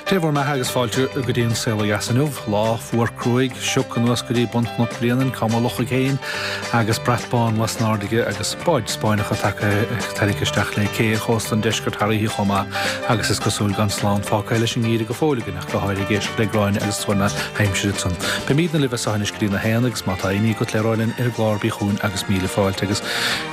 Dé bhur mbeatha agus fáilte go dtí an Saol Ó Dheas inniu. Lá fuar cruaidh, sioc anuas go dtí bun Chnoc Bréanainn, cá mba loch féin, agus brat bán lasnairde aige agus báid Spáinneacha tagtha tarraingthe isteach le cé ar chósta an deiscirt thar oíche chomh maith agus is cosúil gan slán fágtha leis an ngeimhreadh go fóill againn ach go háirithe ag éisteacht le Gráinne agus tuar na haimsire ansan. Beimidne libh as seo anois go dtí na haon agus má tá aon ní agat le rá linn ar an gclár bí chugainn agus míle fáilte agus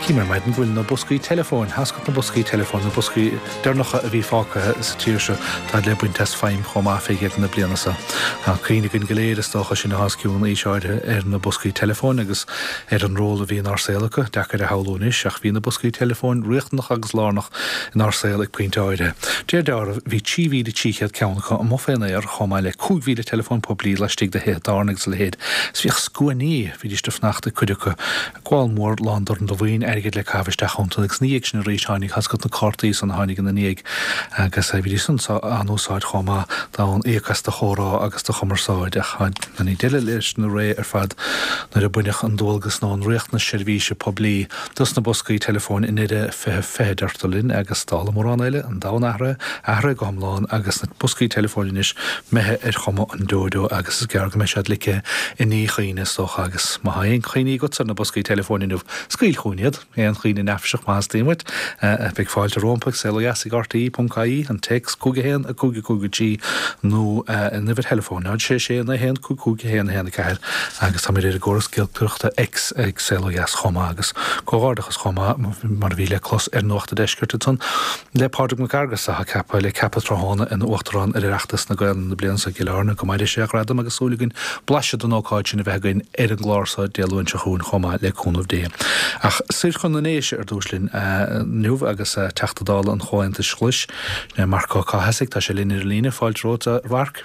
chím ar maidin go bhfuil na boscaí teileafóin, tháscailt na boscaí teileafóin, na boscaí. deireanacha a bhí fágtha sa tír seo, táid le baint as feidhm chomh maith fé dheireadh na bliana seo. Tá cuimhne againn go léir, is dócha, sinn atá os cionn aois áirithe, ar na boscaí teileafóin agus ar an ról a bhí inár saol acu. Deacair a shamhlú anois, ach bhí na boscaí teileafóin riachtanach agus lárnach inár saol ag pointe áirithe. De réir dealraimh, bhí 3,300 ceann acu amuigh fén aer, chomh maith le 5,000 teileafón poiblí laistigh de thithe tábhairne agus a leithéid. Is bhíodh scuainí, bhídís ag fanacht ag cuid acu, Gabháil mór lán dorn de mhaoin airgid le caitheamh isteach iontu agus ina dhiaidh sin arís tháinig tá's agat na cártaí san a tháinig ina ndiaidh agus bhídís san á n-úsáid chomh maith d'fhonn íoc as do chomhrá agus do chumarsáid ach tháinig deireadh leis na ré ar fad nuair a baineadh an dualgas nó an riachtanas seirbhíse poiblí dos na boscaí teileafóin i ndeireadh 2020 deirtear linn agus dála mórán eile an domhan athraithe, athraithe go hiomlán agus na boscaí teileafóin anois imithe ar chuma an deoideo agus is gearr go mbeidh siad ligthe i ndíchuimhne is dócha agus má tá aon chuimhní agatsa ar na boscaí teileafóin inniu, scaoil chugainn iad. Aon chuimhne neafaiseach má theastaíonn uait. Beidh fáilte rompu ag Saol Ó Dheas ag RTÉ.ie, an téacs 5 1 5 5 3 nó an uimhir theileafóin 0 6 6 9 1 5 5 1 1 4 agus táimid ar an gcóras giolcaireachta X ag Saol Ó Dheas chomh maith agus comhghairdeachas chomh maith mar a bhí le clos ar Nuacht an Deiscirt ansan. Le Pádraig Mac Fhearghais atá ceaptha le ceapadh tráthnóna ina Uachtarán ar Oireachtas na Gaelainne na bliana seo i gCill Airne. Go maire sé a ghradam agus súil againn blaiseadh den ócáid sin a bheith againn ar an gclár seo Dé Luain seo chugainn chomh maith le cúnamh Dé. Ach soir chun na nDéise ar dtús linn inniu agus Teachta Dála an Chomhaontais Ghlais, sin é Marc Ó Cathasaigh, tá sé linn ar an líne. Fáilte romhat a Mhairc.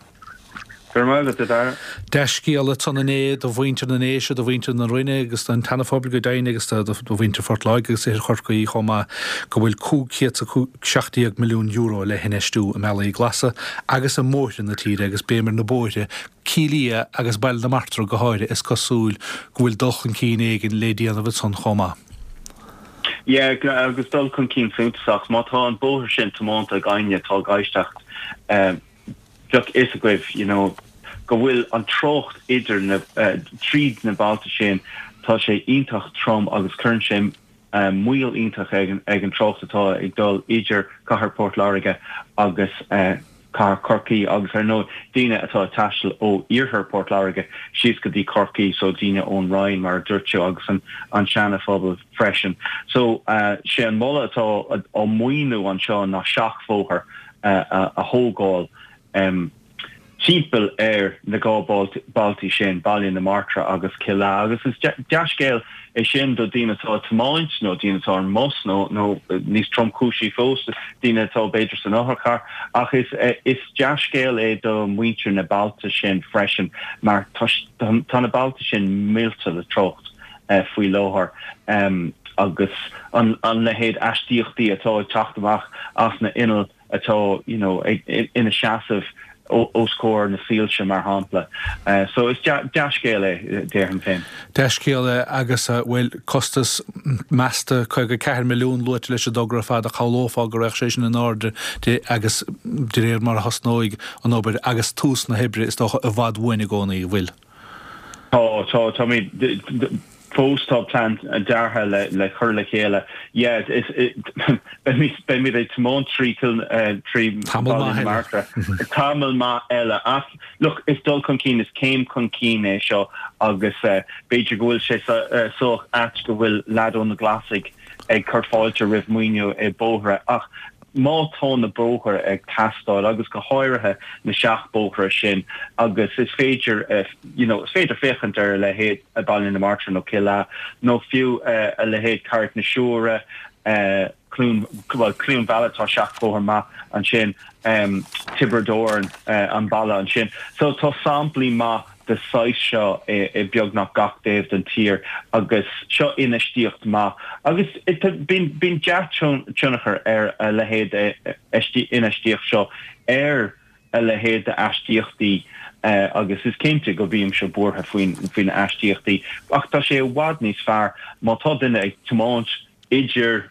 Go raibh maith agat, a Dhara. Dea-scéala ansan inné do mhuintir na nDéise, do mhuintir na Rinne agus don tSeana-Phobal go deimhin agus do mhuintir Phort Láirge agus Oirthear Chorcaí chomh maith go bhfuil €517 milliún le hinfheistiú i mbealaí glasa agus i mbóithre na tíre agus béim ar na bóithre, Cill Ia agus Baile na Martra go háirithe is cosúil go bhfuil dul chun cinn éigin le déanamh ansan chomh maith. Yeah, agus dul chun cinn suntasach. Má tá an bóthar sin tiománta ag éinne atá ag éisteacht, bheadh fhios agaibh you know go bhfuil an trácht idir na, tríd na bailte sin, tá sé iontach trom agus cuireann sé moill iontach ag an, ag an trácht atá ag dul idir cathair Port Láirge agus cathair Chorcaí agus ar ndóigh daoine atá ag taisteal ó iarthar Port Láirge síos go dtí Corcaigh so daoine ón Rinn mar a dúirt tú agus an, an Seana-Phobal freisin. So sé an moladh atá á maoiniú anseo ná seachbhóthar a thógáil timpeall ar na 2 bailtí sin, Baile na Martra agus Cill Ea. Agus is dea-scéal é sin do daoine atá ag tiomáint nó daoine atá ar an mbus nó, nó níos tromchúisí fós, daoine atá b'fhéidir san otharcharr. Ach is, is dea-scéal é do mhuintir na bailte sin freisin mar tá, tá na bailte sin millte le trácht faoi láthair agus an leithéid aistíochtaí atá ag teacht amach as na innill atá you know ina seasamh os comhair na soilse mar shampla. So is dea-scéal é déarfainn féin. Dea-scéal é agus bhuel costas measta 54 milliún luaite leis an dtogra ar fad ach shamhlófá go raghadh sé sin in airde de agus de réir mar a thosnóidh an obair agus tús na hoibre is dócha i bhfad uainn i gcónaí, an bhfuil? Tá, tá, táimid, fós tá plean deartha le, le cur le chéile. Yeah, is, beimid, beimid ag tiomáint trí Cill, trí Tamall Bhaile maith na eile. Martra tamall maith eile ach look, is dul chun cinn, is céim chun cinn é seo agus b'fhéidir go bhfuil sé sách ait go bhfuil leaid ó na Glasaigh ag cur fáilte roimh maoiniú i bóithre ach má tá na bóithre ag teastáil agus go háirithe na seachbhóithre sin agus is féidir you know is féidir féachaint ar a leithéid Baile na Martra nó Cill Ea nó fiú a leithéid Carraig na Siúire, Cluain, bhuel Cluain Mheala tá seachbhóthar maith ansin, Tiobraid Árann an baile ansin. So tá samplaí maith de saghas seo i beagnach gach taobh den tír agus seo infheistíocht maith agus bíonn dea-tionchar ar a leithéid infheistíocht seo ar a leithéid d'aistíochtaí agus is cinnte go mbímse buartha faoi na aistíochtaí ach tá sé i bhfad níos fearr má tá duine ag tiomáint idir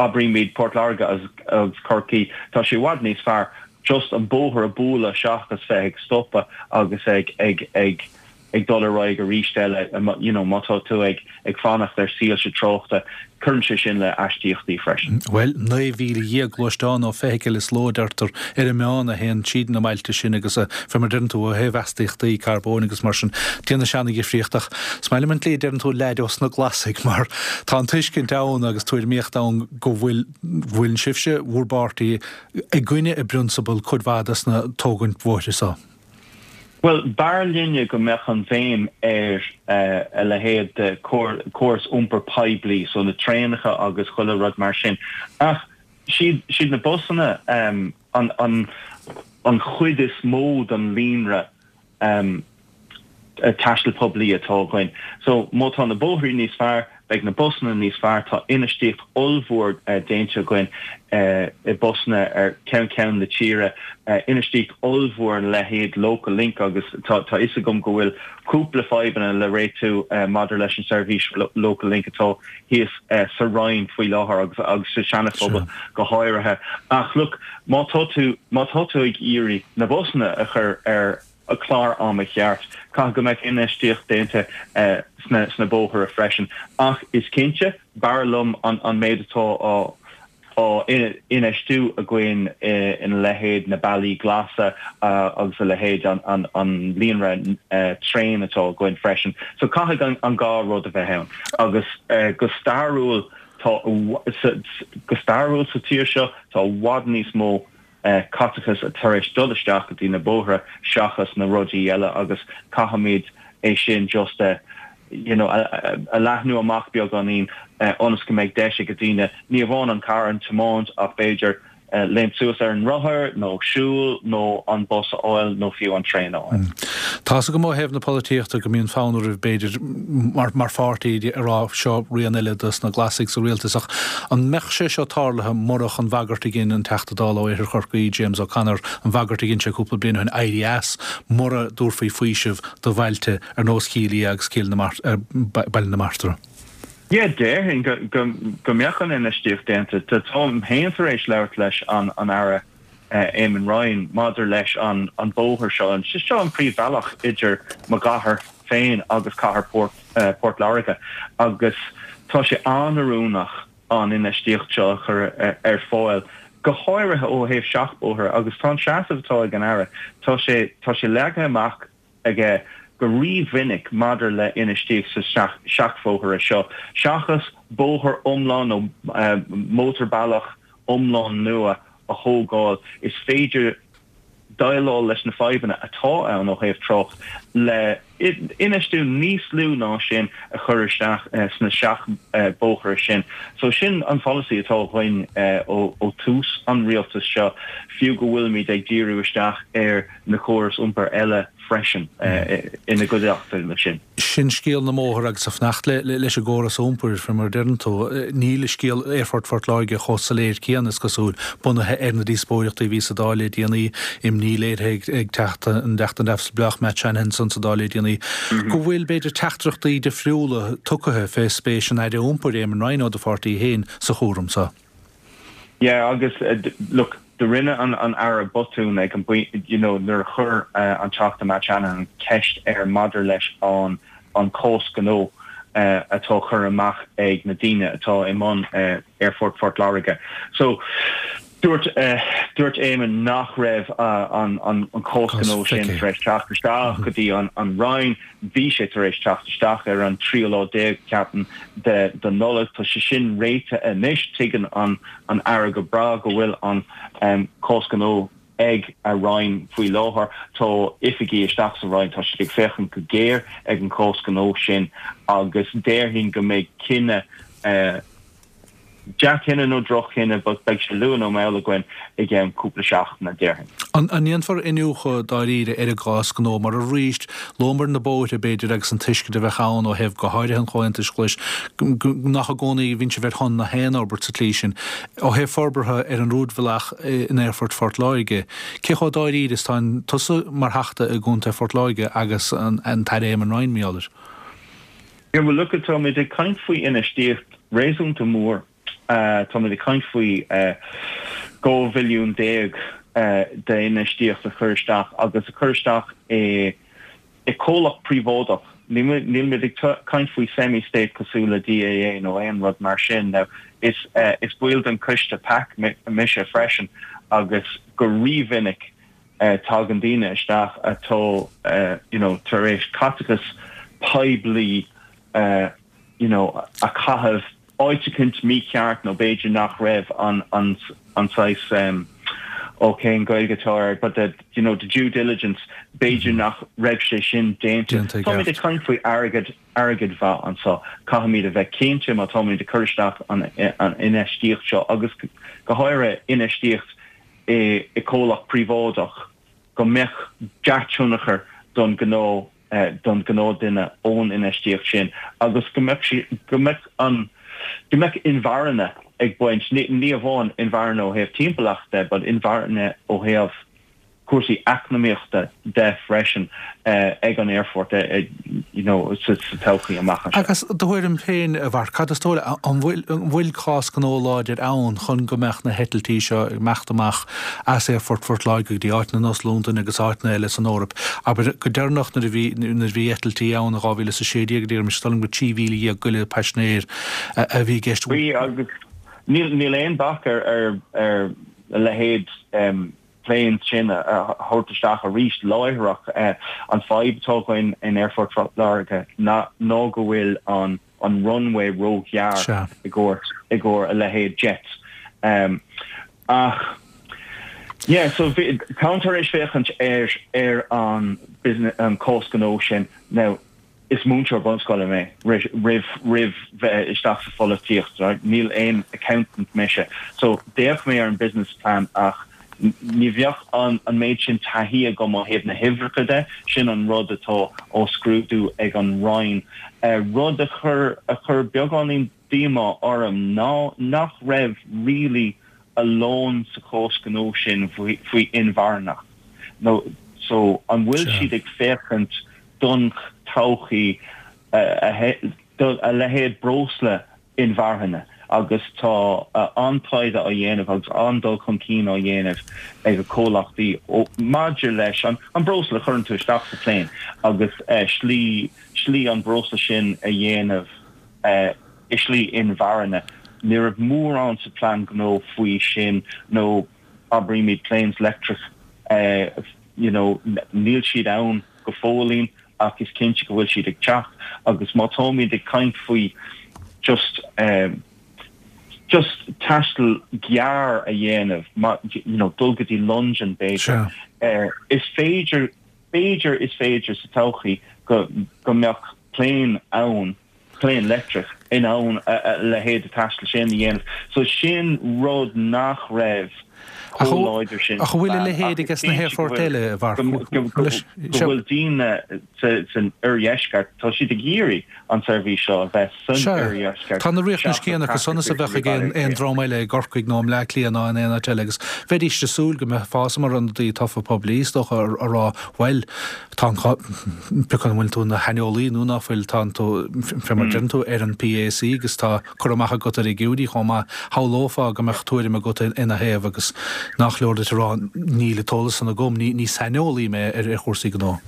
abraímid Port Láirge agus Corcaigh, tá sé i bhfad níos fearr. Just an bóthar a bualadh seachas bheith ag stopadh agus ag ag ag ag dul ar aghaidh arís eile, you know, má tá tú ag ag fanacht ar soilse tráchta, cuireann sé sin le aistíochtaí freisin. Bhuel, 19,000 gluaisteán nó feithicil is ló a deirtear ar an meán a théann tríd na mbailte sin agus fé mar deireann tú ó thaobh astaíochtaí carbóin agus mar sin, déanann sé an-dhifríocht ach is maith liom an tslí a deireann tú leaid ós na Glasaigh mar tá an tuiscint ann agus tuairimíocht ann go bhfuil bhfuil sibhse, bhur bpáirtí, i gcoinne i bprionsabal cuid mhaith des na tógaint bhóithre so. Bhuel, b'fhearr linne go mbeadh an bhéim ar a leithéid de chóras iompair poiblí, so na traenacha agus chuile rud mar sin. Ach siad na busanna an chuid is mó den líonra taistil poiblí atá againn. So, má tá na bóithrí níos fearr, beidh na busanna níos fearr. Tá infheistíocht ollmhór déanta againn i busanna ar ceann ceann na tíre, infheistíocht ollmhór ina leithéid Local Link agus tá a fhios agam go bhfuil cúpla fadhbanna le réitiú maidir leis an seirbhís Local Link atá thíos sa Rinn faoi láthair agus agus sa Seana-Phobal go háirithe. Ach look, má tá tú má tá tú ag iarraidh na busanna a chur ar an chlár ama cheart. Caithfidh go mbeadh infheistíocht déanta sna bóithre freisin. Ach is cinnte, b'fhearr liom an méid atá á infheistiú againn ina leithéid na bealaí glasa agus a leithéid an líonra traein atá againn freisin. So caithfidh an dhá rud a bheith ann. Agus go stairiúil tá go stairiúil sa tír seo tá i bhfad níos mó caiteachas tar éis dul isteach go dtí na bóithre seachas na rudaí eile agus caithfimid é sin just a you know a leathnú amach beagáinín ionas go mbeidh deis ag daoine ní amháin an carr a thiomáint ach b'fhéidir léimt suas ar an rothar nó siúl nó an bus a fháil nó fiú an traein a fháil. Tá's agam ó thaobh na polaitíochta go mbíonn fonn oraibh b'fhéidir mar mar pháirtí a rá seo rian eile dos na Glasaigh sa rialtas ach An mbeadh sé seo tarlaithe murach an bhagairt a dhein an Teachta Dála ó Oirthear Chorcaí, James O'Connor, an bhagairt a dhein sé cúpla bliain ó shin éirí as mura dtabharfaí faoiseamh do bhailte ar nós Chill Ia agus Cill na Baile na Martra? Yeah, déarfainn go mbeadh an infheistíocht déanta. Táim féin tar éis labhairt leis an Aire Eamon Ryan maidir leis an bóthar seo. Seo an príomhbhealach idir mo chathair féin agus cathair Port Láirge agus tá sé an-oiriúnach an infheistíocht seo a chur ar fáil, go háirithe ó thaobh seachbhóithre agus tá an seasamh atá ag an Aire, tá sé, tá sé leagtha amach aige go rímhinic maidir le infheistíocht sa seachbhóithre seo, seachas bóthar iomlán nó mótarbhealach iomlán nua a thógáil, is féidir déileáil leis na fadhbanna atá ann ó thaobh trácht le infheistiú níos lú ná sin a chur isteach sna seachbhóithre sin. So sin an pholasaí atá againn ó tús an rialtais seo, fiú go bhfuilimid ag díriú isteach ar na córais iompair eile freisin ina gcuideachta leis sin. Sin scéal na mbóthar agus ag fanacht leis an gcóras iompair, faoi mar a deireann tú, níl scéal Aerfort Phort Láirge chomh soiléir céanna, is cosúil, bunaithe ar na díospóireachtaí a bhí sa Dáil le déanaí, imní léirithe ag Teachta an Teachta Neamhspleách Matt Shanahan ansan sa Dáil le déanaí, go bhfuil, b'fhéidir, teachtaireachtaí difriúla tugtha fé spéis an Aire Iompair, Eamon Ryan ó do pháirtí féin, sa chúram so. Yeah agus look do rinne an an Aire botún ag an you know nuair a chuir an Teachta Matt Shanahan ceist air maidir leis an an cás gnó atá curtha amach ag na daoine atá i mbun Aerfort Phort Láirge. So dúirt dúirt Eamon nach raibh an an an cás gnó sin tar éis teacht isteach go dtí an an Roinn. Bhí sé tar éis teacht isteach ar an tríú lá déag, ceapaim, de de Nollaig. Tá sé sin réitithe anois. Tuigeann an an Aire go breá go bhfuil an cás gnó ag a Roinn faoi láthair. Tá oifigigh isteach sa Roinn, tá siad ag féachaint go géar ag an chás gnó sin agus déarfainn go mbeidh cinneadh Dea-chinneadh nó droch-chinneadh, but beidh sé luath nó mall againn i gceann cúpla seachtaine, déarfainn. An ndéanfar iniúchadh dáiríre ar an gcás gnó mar arís, luamar na bóithre, b'fhéidir, agus an tuiscint a bheadh ann ó thaobh go háirithe an Chomhaontais Ghlais, nach i gcónaí a bhíonn sibh ar shon na haon fhorbairt sa tslí sin. Ó thaobh forbartha ar an rúidbhealach in Aerfort Phort Láirge, cé chomh dáiríre is atá tusa mar Theachta i gContae Phort Láirge agus an tAire Eamon Ryan, mar gheall air? Yeah, well look, táimid ag caint faoi infheistíocht réasúnta mór. Táimid ag caint faoi 12 bhilliún. D'infheistíocht a chur isteach agus a chur isteach i comhlacht príobháideach. Nílimid ag caint faoi semi-state cosúil le DAA nó aon rud mar sin. Now is is baill den coiste PAC mise freisin agus go rímhinic tagann daoine isteach atá you know tar éis caiteachas poiblí you know a chaitheamh áit eicínt mícheart nó b'fhéidir nach raibh an an an saghas em ó cén Gaeilge atá air but the you know the due diligence b'fhéidir nach raibh sé sin déanta. Déanta i Táimid ag gceart. caint faoi airgead airgead mhaith anseo. Caithfimid a bheith cinnte má táimid ag cur isteach an an infheistíocht seo agus go háirithe infheistíocht i i comhlacht príobháideach go mbeadh dea-tionchar don ghnó don ghnáthdhuine ón infheistíocht sin agus go mbeadh sí, go mbeadh an, go mbeadh inmharthana ag baint, ní amháin inmharthana ó thaobh timpeallachta de but inmharthana ó thaobh cúrsaí eacnamaíochta de freisin ag an aerfort you know sa todhchaí amach anseo. Agus do thuairim féin, a Mharc, cad is dóigh leat, an bhfuil, an bhfuil cás gnó láidir ann chun go mbeadh na heitiltí seo ag imeacht amach as Aerfort Phort Láirge go dtí áiteanna ar nós Londain agus áiteanna eile san Eoraip. Abair, go deireanach nuair a bhí, nuair a bhí eitiltí ann in 2016, deirimse, is dóigh liom gur 13,000 goile paisinéir a bhí i gceist. Bhí agus níl, níl aon bac ar, ar, ar a leithéid planes sin a thabhairt isteach arís láithreach. An fadhb atá againn in Aerfort Phort Láirge ná, ná go bhfuil an, an runway róghearr i gcomhair, i gcomhair a leithéid jets. Ach yeah, so bhí, táim tar éis féachaint ar, ar an business, an cás gnó sin. Now, is múinteoir bunscoile mé roimh, roimh bheith isteach sa pholaitíocht, right? Níl aon accountant mise. So d'fhéach mé ar an business plan ach ní bheadh an, an méid sin taithí agam ó thaobh na huimhreacha de, sin an rud atá á scrúdú ag an Roinn. Rud a chuir, a chuir beagáinín díomá orm ná nach raibh really a lán sa chás gnó sin faoi inmharthanacht nó so an bhfuil siad ag féachaint don todhchaí do a leithéid breosla inmharthana agus tá an-taighde á dhéanamh agus an-dul chun cinn á dhéanamh ag comhlachtaí maidir leis an breosla a chuireann tú isteach sa plane agus slí slí an breosla sin a dhéanamh i slí inmharthana. Ní raibh mórán sa plean gnó faoi sin nó abraímid planes leictreach you know níl siad ann go fóillín ach is cinnte go bhfuil siad ag teacht agus má táimid ag caint faoi just just taisteal gearr a dhéanamh you know dul go dtí Londain b'fhéidir is féidir b'fhéidir is féidir sa todhchaí go go mbeadh plane ann plane leictreach in ann a leithéid de taisteal sin a dhéanamh. So sin rud nach raibh chomh láidir sin Ach an bhfuil a leithéid aige sna haerfoirt eile, a Mharc? Go bhfuil daoine san oirdheisceart, tá siad ag iarraidh an tseirbhís seo a bheith san oirdheisceart. Tá na riachtanais céanna acu san is a bheadh ag aon dream eile i gCorcaigh nó i mBleá Cliath ná in aon áit eile agus bheidís ag súil go mbeifeá mar ionadaí tofa poiblí, is dócha, a rá, bhuel, Tá an, pé acu an bhfuil tú ina shaineolaí nó ná fuil, tá tú, fé mar a deireann tú, ar an PAC agus tá cur amach agat ar fhigiúirí chomh maith. Shamhlófá go mbeadh tuairim agat ina thaobh agus nach leor duit a rá níl an t-eolas san agam, ní saineolaí mé ar chúrsaí gnó.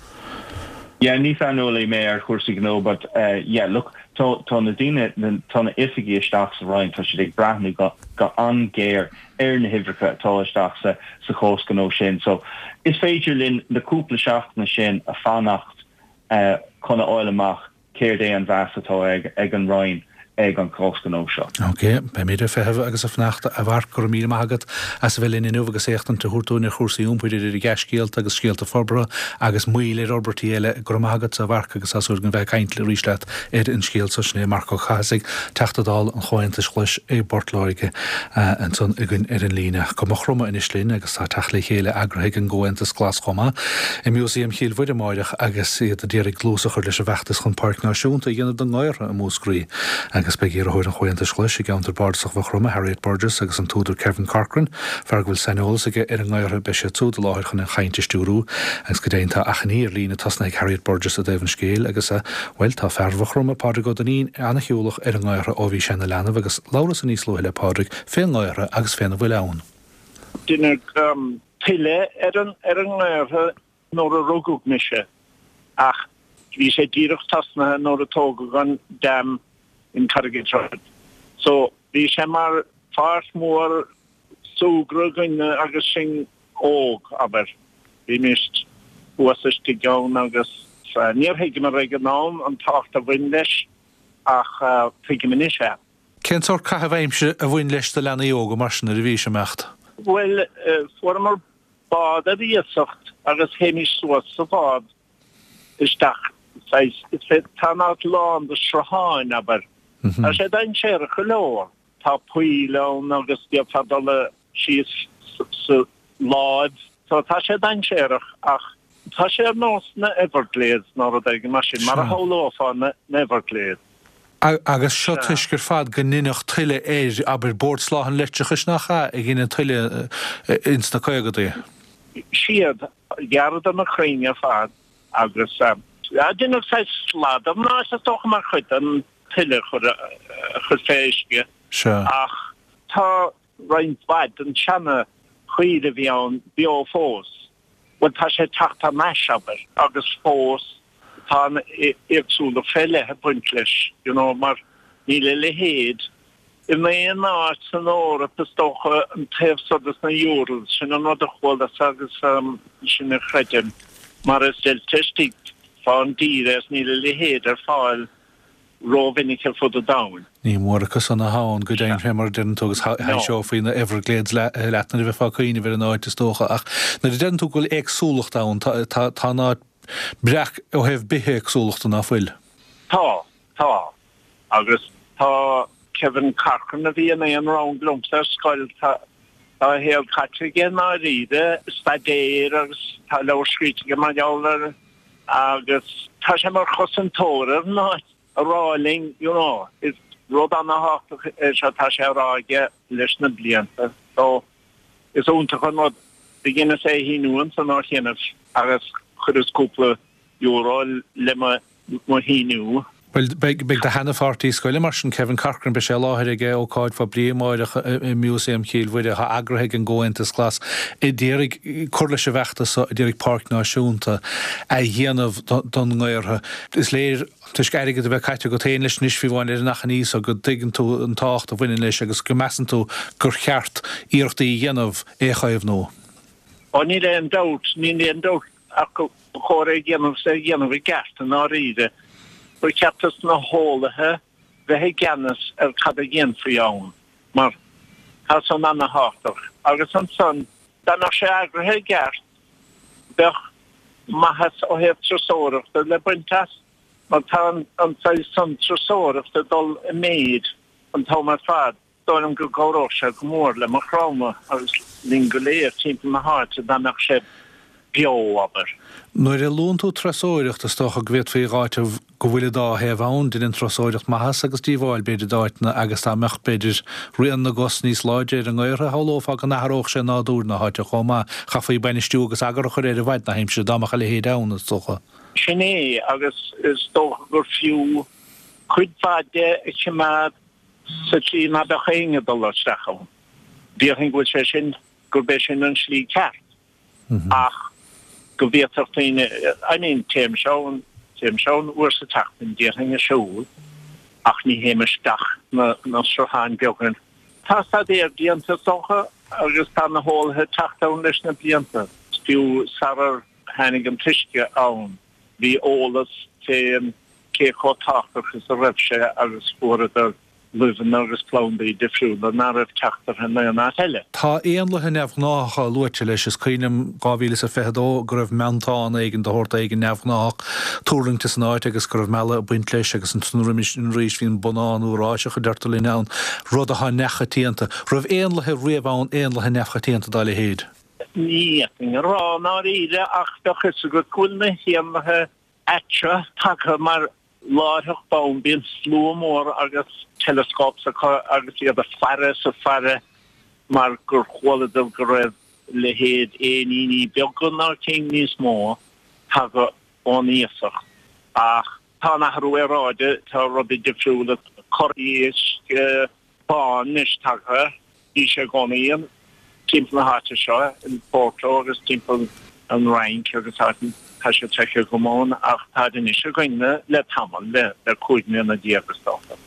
Yeah, ní saineolaí mé ar chúrsaí gnó but yeah, look, tá, tá na daoine, tá na oifigigh isteach sa Roinn, tá siad ag breathnú go, go an-ghéar ar na huimhreacha atá isteach sa sa chás gnó sin. So is féidir linn na cúpla seachtaine sin a fanacht chun a fháil amach céard é an mheas atá ag ag an Roinn ag an chás gnó seo. Ok, beimid ag feitheamh agus ag fanacht a Mharc, go raibh míle maith agat as a bheith linn inniu agus éachtaint a thabhairt dúinn ar chúrsaí iompair idir dea-scéalta agus scéalta forbartha agus moill ar fhorbairtí eile. Go raibh maith agat a Mharc agus tá súil againn bheith ag caint arís leat ar an scéal so. Sin é Marc Ó Cathasaigh, Teachta Dála an Chomhaontais Ghlais i bPort Láirge ansan againn ar an líne. Go Maigh Chromtha anois linn agus tá teacht le chéile eagraithe ag an gComhaontas Glas chomh maith i Músaem Chill Mhuire amáireach agus iad ag iarraidh dlús a chur leis an bhfeachtas chun Páirc Náisiúnta a dhéanamh den nGaorthadh i Múscraí agus beidh iarrthóir an Chomhaontais Ghlais i gceantar bardasach Mhaigh Chromtha, Harriet Burgess agus an t-údar Kevin Corcoran, fear go bhfuil saineolas aige ar an nGaorthadh, beidh siad súd i láthair chun an chaint a stiúrú agus go deimhin tá achainí ar líne tosnaithe ag Harriet Burgess i dtaobh an scéil agus a Bhuel, tá fear Mhaigh Chromtha, Pádraig Ó Duinnín, an-shiúlach ar an nGaorthadh ó bhí sé ina leanbh agus labhras níos luaithe le Pádraig fén nGaorthadh agus féna bhfuil ann. Deineadh tuile ar an nGaorthadh nuair a rugadh mise ach bhí sé díreach tosnaithe nuair a tógadh an dam in Carrigatroad. So bhí sé mar pháirc mhór súgradh againn agus sinn óg, abair. Bhímis thuas istigh ann agus níor thuigeamar ag an am an tábhacht a bhain leis ach tuigim anois é. Cén sórt caitheamh aimsire a bhain leis do leanaí óga mar sin nuair a bhís ag imeacht? Bhuel, fuaireamar bád ar iasacht agus théimis suas sa bhád isteach saghas, tá an áit lán de srutháin, abair. Tá sé dainséarach go leor. Tá poill ann agus d'fhéadfá dul síos sa láib. So tá sé dainséarach ach tá sé ar nós na Everglades nó rud éigin mar sin, mar a shamhlófá na Everglades. Agus seo toisc ar fad go ndeineadh tuile air, abair, Bord Soláthair an Leictreachais nach ea a dhein an tuile ins na caogadaí? Siad, ghearradar na crainn ar fad agus deineadh saghas slad ar an áit is dócha mar chuid den tuile a chur fé uisce. Ach tá roinnt mhaith den seana choill a bhí ann beo fós. Bhuel tá sé ag teacht thar n-ais, abair, agus fós tá an éagsúlacht fé leith ag baint leis, you know, mar níl a leithéid in aon áit san Eoraip is dócha, an taobh so des na Urals, sin an rud a chualas agus sin a chreidim, mar is deilte istigh fán dtír é is níl a leithéid ar fáil rómhinic ar fud an domhain. Ní mór acu san atá ann, go deimhin, fé mar a deireann tú, agus thaibhseofaí na Everglades leat nuair a bheifeá ag cuimhneamh ar an áit, is dócha. Ach nuair a deireann tú go bhfuil éagsúlacht ann, tá an áit breac ó thaobh bithéagsúlachta, ná fuil? Tá, tá. Agus tá Kevin Corcoran, a bhí in aon rang liomsa ar scoil, tá a shaol caite aige i ndáiríre, staidéar agus tá leabhar scríte aige mar gheall air. Agus tá sé mar chosantóir ar an áit a rá linn, you know, is rud ana-thábhachtach é seo, tá sé á rá aige leis na blianta. So, is iontach an rud. Do dheineas é a shíniú ansan ó chianaibh agus chuireas cúpla euro le mo mo shíniú. Bhuel, beidh do sheana-pháirtí scoile mar sin, Kevin Corcoran, beidh sé i láthair ag ócáid phoiblí amáireach i Músaem Chill Mhuire, atá eagraithe ag an gComhaontas Glas, a d'iarraidh cur leis an bhfeachtas so, a d'iarraidh páirc náisiúnta a dhéanamh don nGaorthadh. Is léir, toisc airgead a bheith caite agat féin leis anois, fiú amháin, ar an achainí so, go dtuigeann tú an tábhacht a bhaineann leis agus go measann tú gur cheart iarrachtaí a dhéanamh é a chaomhnú. Ó, níl aon dabht, níl aon dabht ach go Ba chóir é a dhéanamh is é a dhéanamh i gceart i ndáiríre. Ba cheart dos na heolaithe bheith i gceannas ar cad a dhéanfaí ann, mar tá san ana-thábhachtach. Agus ansan, dá mbeadh sé eagraithe i gceart, bheadh maitheas ó thaobh turasóireachta le baint as, mar tá an saghas san turasóireachta ag dul i méid an t-am ar fad. Dóigh liom go gcabhródh sé go mór le Maigh Chromtha agus linn go léir timpeall na háite dá mbeadh sé beo, abair. Nuair a luann tú turasóireacht, is dócha go bhféadfaí a dh'áiteamh go bhfuil an dá thaobh ann, deineann turasóireacht maitheas agus díobháil, b'fhéidir, d'áiteanna agus dá mbeadh, b'fhéidir, rian na gcos níos láidre ar an nGaorthadh, shamhlófá go n-athródh sé nádúr na háite chomh maith. Chaithfí bainistiú agus eagar a chur air i bhfaid na haimsire, dá mbeadh a leithéid ann, is dócha. Sin é, agus is dócha gur fiú cuid mhaith de a choimeád sa tslí ná beadh éinne ag dul isteach ann. Déarfainn go bhfuil sé sin, gurb é sin an slí ceart. Ach go bhféadfadh daoine, I mean, téimse ann, téimse ann uair sa tseachtain, déarfainn ag siúl, ach ní théim isteach na, na srutháin beaga. Tá staidéar déanta is dócha agus tá na heolaithe ag teacht ann leis na blianta, fiú sarar tháinig an t-uisce ann. Bhí eolas fén cé chomh tábhachtach is a raibh sé agus fuaireadar luibheanna agus plandaí difriúla ná raibh teacht orthu in aon áit eile. Tá éanlaithe neamhghnáthacha luaite leis. Is cuimhin liom 2022 go raibh meantán éigin de shórt éigin neamhghnáthach tuirlingte san áit agus go raibh mealladh ag baint leis agus ansan roimis sin arís bhí an bonnán Eoráiseach a deirtear linn ann, rud atá neamhchoitianta. Raibh éanlaithe riamh ann, éanlaithe neamhchoitianta dá leithéid? Ní fhéadfainn a rá i ndáiríre ach bheadh fhios agat go bhfuil na héanlaithe aite tagtha mar láithreach bonn bíonn slua mór agus telescopes acu agus iad ag faire is ag faire mar gur chualadar go raibh leithéid éiníní beaga nó cinn níos mó tagtha ón iasacht ach tá an athrú aeráide, tá rudaí difriúla, corr éisc bán anois tagtha, bhí sé i gcónaí. Timpeall na háite seo, in Porto agus timpeall an Fhrainc agus áiteanna, tá siad feicthe agam ann ach táid anois againn le tamall, le 15 mbliana is dócha.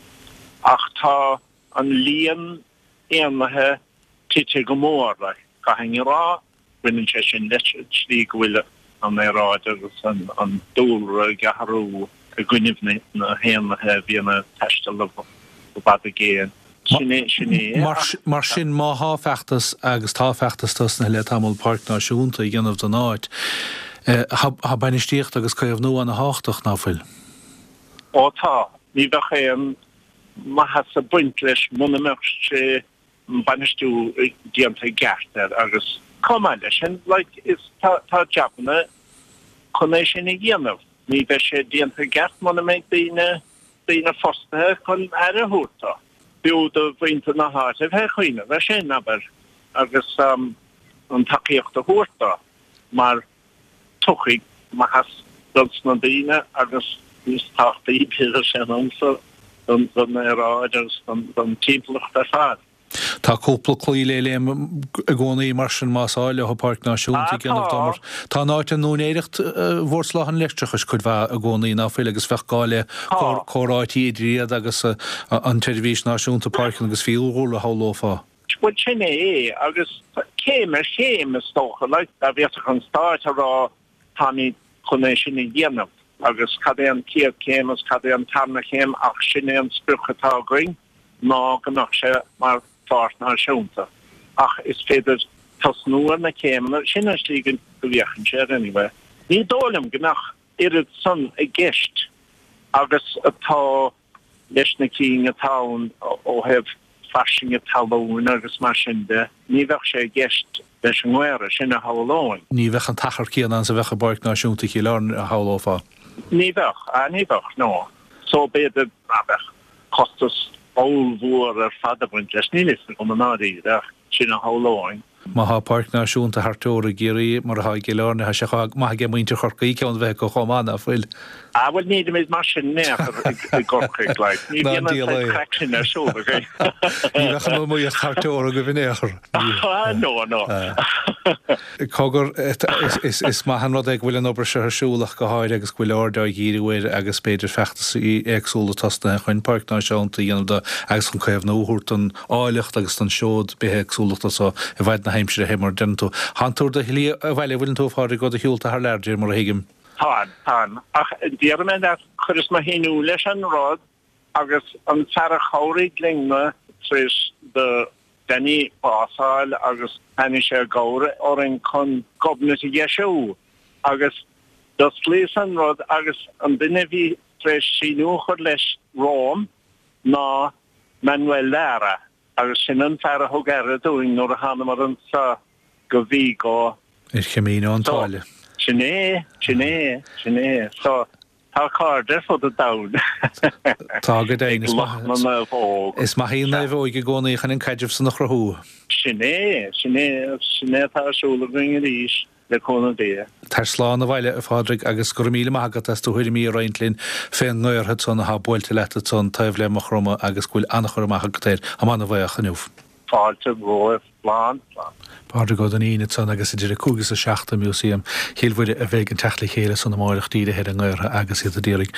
Ach tá an líon éanlaithe tite go mór, like, caithfidh a rá. Baineann sé sin leis an tslí go bhfuil an aeráid agus an dúlra ag athrú i gcoinnibh na héanlaithe a bhíonn ag taisteal i bhfad i gcéin. Sin é, sin é. Mar sin, má thá feachtas, agus tá feachtas tosnaithe le tamall, Páirc Náisiúnta a dhéanamh den áit, thá bainistíocht agus caomhnú ana thábhachtach, ná fuil? Ó tá. Ní bheadh aon mhaitheas ag baint leis muna mbeadh sé bainistiú déanta i gceart air agus chomh maith leis sin like is tá tá jabanna chun é sin a dhéanamh. Ní bheidh sé déanta i gceart muna mbeidh daoine daoine fostaithe chun aire a thabhairt dó. B'fhiú do mhuintir na háite a bheith ag cuimhneamh ar sin, abair, agus an tacaíocht a thabhairt dó mar tiocfaidh maitheas dos na daoine agus níos tábhachtaí b'fhéidir sé liomsa don aeráid agus don timpeallacht ar fad. Tá cúpla claí le léim i gcónaí mar sin más áil leo Páirc Náisiúnta a dhéanamh dó mar tá an áit in úinéireacht Bhord Soláthair an Leictreachais cuid mhaith i gcónaí ná fuil agus bheadh gá le comhráití idir iad agus an tSeirbhís Náisiúnta Páirceanna agus Fiadhúlra a shamhlófá. Bhuel sin é agus céim ar chéim is dócha, like, dá bhféadfadh an Stát a rá táimid chun é sin a dhéanamh agus cad é an chéad chéim agus cad é an tarna chéim ach sin é an sprioc atá againn ná go mbeadh sé mar pháirc náisiúnta. Ach is féidir tosnú ar na céimeanna, sin an slí go bhféachann sé air anyway. Ní dóigh liom go mbeadh oiread san i gceist agus atá leis na cinn atá ann ó thaobh fairsinge talún agus mar sin de, ní bheadh sé i gceist leis an nGaora, sin a shamhlóinn. Ní bheadh an t-achar céanna ann is a bheadh i bPáirc Náisiúnta Chill Airne, a shamhlófá. Ní bheadh, ah ní bheadh, no. So b'fhéidir ná beadh costas ollmhór ar fad ag baint leis, níl fhios agam i ndáiríre ach sin a shamhlóinn. Má thá Páirc Náisiúnta thar teora i gCiarraí, mar atá i gCill Airne, thá sé chomh maith aige muintir Chorcaí ceann a bheith acu chomh maith, ná fuil? Ah bhuel nílimid mar sin in aon chor i gCorcaigh, like. Ní bhíonn an saghas craic sin ar siúl againn. Ní bheadh an iomaíocht thar teora agaibh in aon chor. Ah no, no. Cogar, is maith an rud é go bhfuil an obair seo ar siúl ach go háirithe agus go bhfuil aird á dhíriú air agus b'fhéidir feachtasaí éagsúla tosnaithe chun Páirc Náisiúnta a dhéanamh de agus chun caomhnú a thabhairt don áilleacht agus don seod bithéagsúlachta so i bhfaid na haimsire fé mar a deireann tú. Thánn tú ar do shlí abhaile, an bhfuileann tú, a Phádraig, ó do shiúlta thar lear, de réir mar a thuigim. Táim, táim. Ach déarfaidh mé leat, chuireas mo shíniú leis an rud agus an fear a chabhraigh linn-na tar éis do Danny bás a fháil agus tháinig sé i gcabhair orainn chun Gobnait a dheisiú agus d'osclaíos an rud agus an duine a bhí tar éis síniú a chur leis romham ná Manuel Lara agus sin an fear a thug aire dúinn nuair a thánamar anso go Vigo. Ar Chamino an tSáile. Sin é, sin é, sin é. So, tá cairde ar fud an domhain. Tá go deimhin. Ag lucht na naomhóg. Is maith í an naomhóig i gcónaí chun an caidreamh san a chruthú. Sin é, sin é, sin é atá ar siúl againn arís. Le cúnamh Dé. Tar slán abhaile, a Phádraig, agus go raibh míle maith agat as do thuairimí a roinnt linn fén ngaorthad san athá buailte leat ansan taobh le Maigh Chromtha agus go bhfuil an-chur amach agat air. Táim ana-bhaoch inniu. Fáilte romhaibh. Slán. Slán. Pádraig Ó Duinnín ansan agus idir 5 is 7 i Músaem Chill Mhuire a bheidh an teacht le chéile san amáireach dírithe ar an ngaorthadh agus iad a d'iarraidh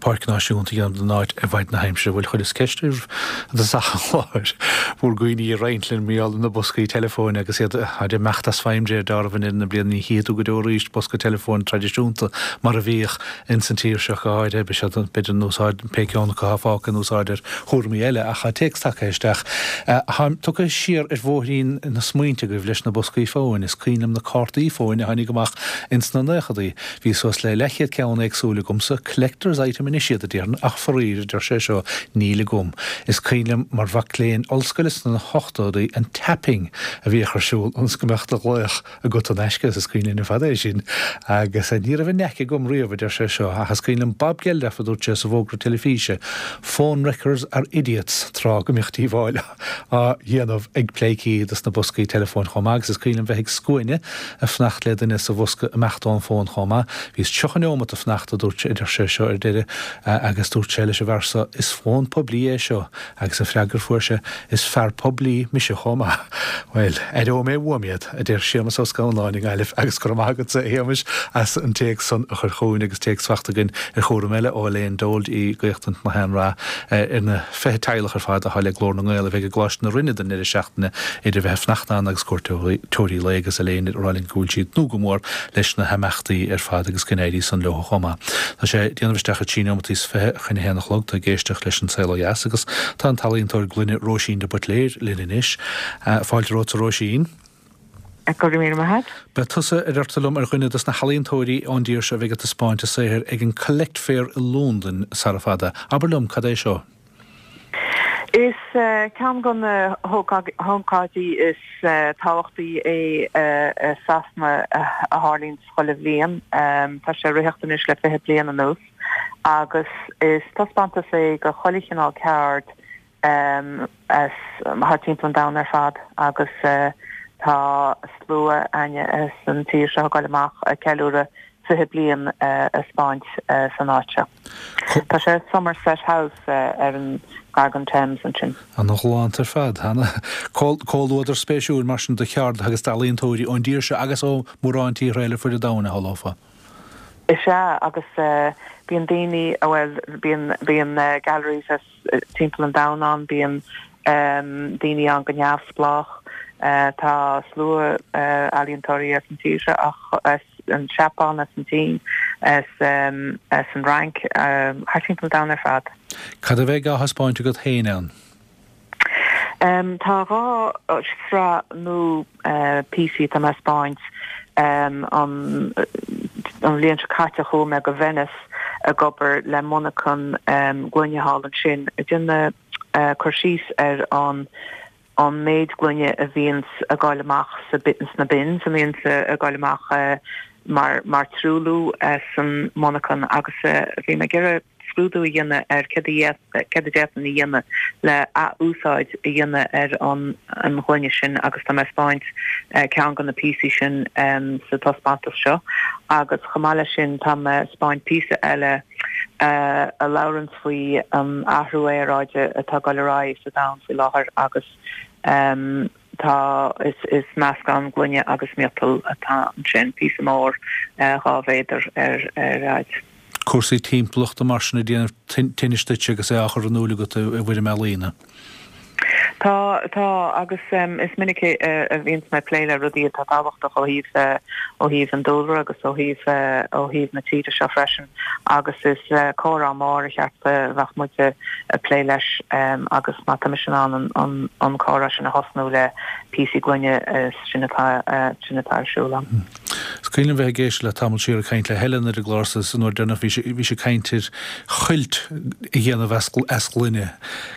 páirc náisiúnta a dhéanamh den áit i bhfaid na haimsire. Bhuel chuireas ceist oraibh i dtosach an chláir bhur gcuimhní a roinnt linn mar gheall ar na boscaí teileafóin agus iad ag imeacht as feidhm de réir dealraimh in na bliana. Ní chífidh tú go deo arís bosca teileafóin traidisiúnta mar a bhíodh ins an tír seo go háirithe. Beidh siad b'fhéidir in úsáid, pé ceann acu atá fágtha in úsáid ar chúraimí eile ach tá téacs tagtha isteach. Táim tugtha siar ar bhóithrín na smaointe agaibh leis na boscaí fóin. Is cuimhin liom na cártaí fóin a tháinig amach ins na naochadaí. Bhí suas le leathchéad ceann éagsúil agamsa, collector's item anois iad, a déarfainn, ach faraor, a deir sé seo, níl agam. Is cuimhin liom mar mhac léinn ollscoile sna hochtóidí an tapping a bhíodh ar siúl ionas go mbeadh do ghlaoch agat in aisce, is cuimhin linn ar fad é sin. Agus ní raibh an knack agam riamh, a deir sé seo, ach is cuimhin liom Bob Geldof a dúirt sé sa bhfógra teilifíse, Phone wreckers are idiots, tráth go mbíodh díobháil. á dhéanamh ag pleidhcí dos na boscaí teileafóin chomh maith agus is cuimhin liom bheith ag scuaine ag fanacht le duine sa bhosca imeacht ón bhfón chomh maith. Bhíos 30 neomat ag fanacht, a dúirt a deir sé seo ar deireadh agus dúirt sé leis an bhfear so, is fón poiblí é seo agus an freagra a fuair sé, is fear poiblí mise chomh maith. Bhuel, aireoidh mé uaim iad, a deir Séamus Ó Scanláin i nGaillimh agus go raibh maith agatsa, a Shéamais, as an téacs san a chur chugainn agus téacs fachta againn ar chúram eile ó Elaine Dold i gCaochtaint na hAon-Rath ar na 20 teaghlach ar fad atá le Glór na nGael a bheidh i gColáiste na Rinne don ndeireadh seachtaine idir bheith ag fanacht ann agus cuairteoirí lae agus Elaine ag rá linn go bhfuil sí ag tnúth go mór leis na himeachtaí ar fad agus go n-éirí san leo chomh maith. Tá sé ag déanamh isteach ar 13 neomataí is 20 chun a haon a chlog. Tá ag éisteacht leis An Saol Ó Dheas agus tá an t-ealaíontóir gloine Róisín de Buitléir linn anois. Fáilte romhat a Róisín. Go raibh míle maith agat. Beidh tusa, a deirtear liom, ar dhuine dos na healaíontóirí ón dtír seo a bheidh ag taispeáint a saothair ag an Collect Fair i Londain sara fada. Abair liom, cad é seo? Is ceann de na hócáidí is tábhachtaí é i Sasana a tharlaíonn chuile bhliain. Tá sé ag ritheacht anois le 20 bliain anuas agus is taispeántas é de chuile chineál ceard as thar timpeall an domhain ar fad agus tá slua againne as an tír seo ag goil amach ag ceiliúradh 20 bliain a 'speáint san áit seo. Tá sé i Somerset House ar an gar don Thames ansin. Ana ghalánta ar fad. Ana comhluadar spéisiúil mar sin do cheardaithe agus d'ealaíontóirí ón dtír seo agus ó mhórán tíortha eile ar fuid an domhain, a shamhlófá. Is ea, agus bíonn daoine, bhuel, bíonn, bíonn galleries as timpeall an domhain ann, bíonn daoine ann go neamhspleách, tá slua ealaíontóirí as an tír seo ach as an Seapáin, as an tSín, as an Fhrainc, thar timpeall an domhain ar fad. Cad a bheidh á thaispeáint agat féin ann? Tá 2 shraith nua píosaí atá mé a 'speáint. An bhliain seo caite chuaigh mé go Venice ag obair le monarchan gloine thall ansin ag déanamh cur síos ar an an méid gloine a bhíonns ag goil amach sa sna bins, a bhíonns ag goil amach mar mar truailliú san monarchan agus bhí mé ag iarraidh scrúdú a dhéanamh ar céard a céard a d'fhéadfainn a dhéanamh le ath-úsáid a dhéanamh ar an an ghloine sin agus tá mé ag 'speáint ceann de na píosaí sin sa taispeántas seo agus chomh maith leis sin tá mé ag 'speáint píosa eile a labhranns faoi an athrú aeráide atá ag dul ar aghaidh sa domhan faoi láthair agus tá is is meascán gloine agus miotal atá ansin, píosa mór 2 mhéadar ar ar fhaid. Cúrsaí timpeallachta mar sin ag déanamh tinnis duit agus é á chur in iúl agat i bhfoirm ealaíne. Tá, tá, agus is minic a bhíonns mé ag plé le rudaí atá tábhachtach ó thaobh, ó thaobh an dúlra agus ó thaobh, ó thaobh na tíre seo freisin agus is comhrá mór ar cheart a bheadh muid ag plé leis agus má tá mise in ann an, an comhrá sin a thosnú le píosaí gloine sin atá, sin atá ar siúl agam. Is cuimhin liom bheith ag éisteacht leat tamall siar ag caint le Helen ar an gclár so an uair deireanach bhí sí, bhí sí ag caint ar chuilt a dhéanamh as, as gloine.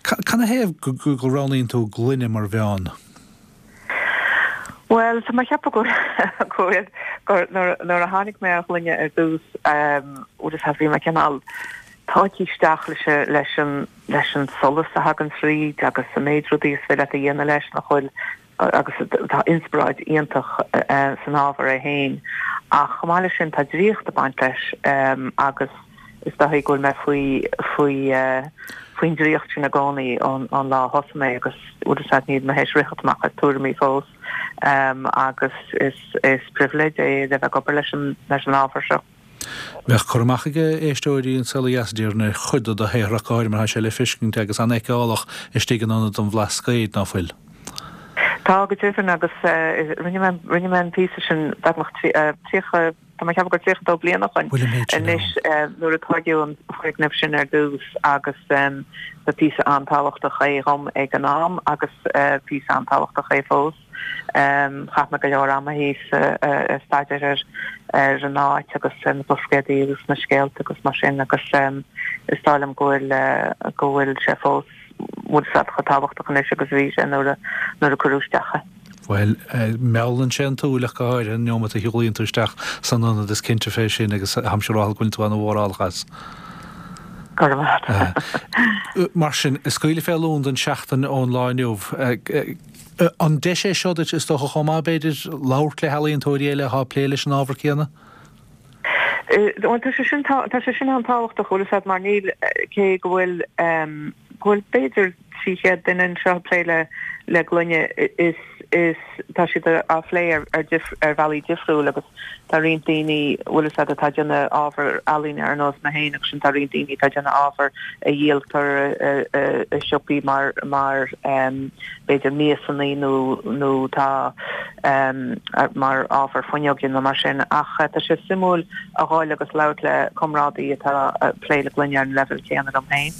Canathaobh go, go, go roghnaíonn tú gloine mar mheán? Bhuel, tá mé ag ceapadh go, go bhfuil, gur nuair, nuair a tháinig mé ar ghloine ar dtús, bhfuil a fhios agat, bhí mé cineál tógtha isteach leis, leis an, leis an solas a thagann tríd agus an méid rudaí is féidir leat a dhéanamh leis nach bhfuil agus tá inspioráid iontach san ábhar é féin ach chomh maith leis sin tá draíocht ag baint leis agus is dóichí go bhfuil mé faoi faoi faoin draíocht sin i gcónaí ón lá a thosaigh mé agus bhfuil a fhios agat níl mé théis ritheacht amach as tuairimí fós agus is is pribhléid é a bheith ag obair leis an leis an ábhar seo. Bheadh cur amach ag éisteoirí An Saol Ó Dheas, déarfainn, ar chuid de do shaothar ach go háirithe mar tá sé le feiscint agus an-fheiceálach istigh in Ionad an Bhlascaoid, ná fuil? Tá, go deimhin, agus rinne mé, rinne mé an píosa sin beagnach 30, tá mé ag ceapadh gur 32 bliain ó shoin Bhfuil an méid sin anois ann? nuair a tóigeadh an foirgneamh sin ar dtús agus ba phíosa an-tábhachtach é dhom ag an am agus píosa an-tábhachtach é fós. Chaith mé go leor ama thíos ag staidéar ar an áit agus ar na Blascaodaí agus na scéalta agus mar sin agus is dóigh liom go bhfuil go bhfuil sé fós bhfuil a fhios agat chomh tábhachtach anois agus a bhí sé nuair a nuair a cuireadh isteach é. Bhuel, meallann sé an tsúil ach go háirithe an neomat a shiúlaíonn tú isteach san ionad, is cinnte fé sin agus táimse ag rá go bhfuil tú ana-mhórálach as. Go raibh maith agat. Mar sin, ag scaoileadh fé Londain seachtain ón lá inniu. An deis é seo duit, is dócha chomh maith, b'fhéidir, labhairt le healaíontóirí eile atá ag plé leis an ábhar céanna? Bhuel, tá sé sin, tá sé sin an-tábhachtach, bhfuil a fhios agat, mar níl, cé go bhfuil, go bhfuil b'fhéidir 300 duine anseo ag plé le, le gloine, is, is, tá siad á phlé ar, ar dif, ar bhealaí difriúil agus tá roinnt daoine, bhfuil a fhios agat, atá ag déanamh ábhar ealaíne ar nós mé féin agus sin tá roinnt daoine atá ag déanamh ábhar a dhíoltar i, i siopaí mar, mar, b'fhéidir miasanna nó nó tá mar ábhar fuinneoige nó mar sin ach tá sé suimiúil a dhul agus labhairt le comrádaí atá ag plé le gloine ar an leibhéal céanna liom féin.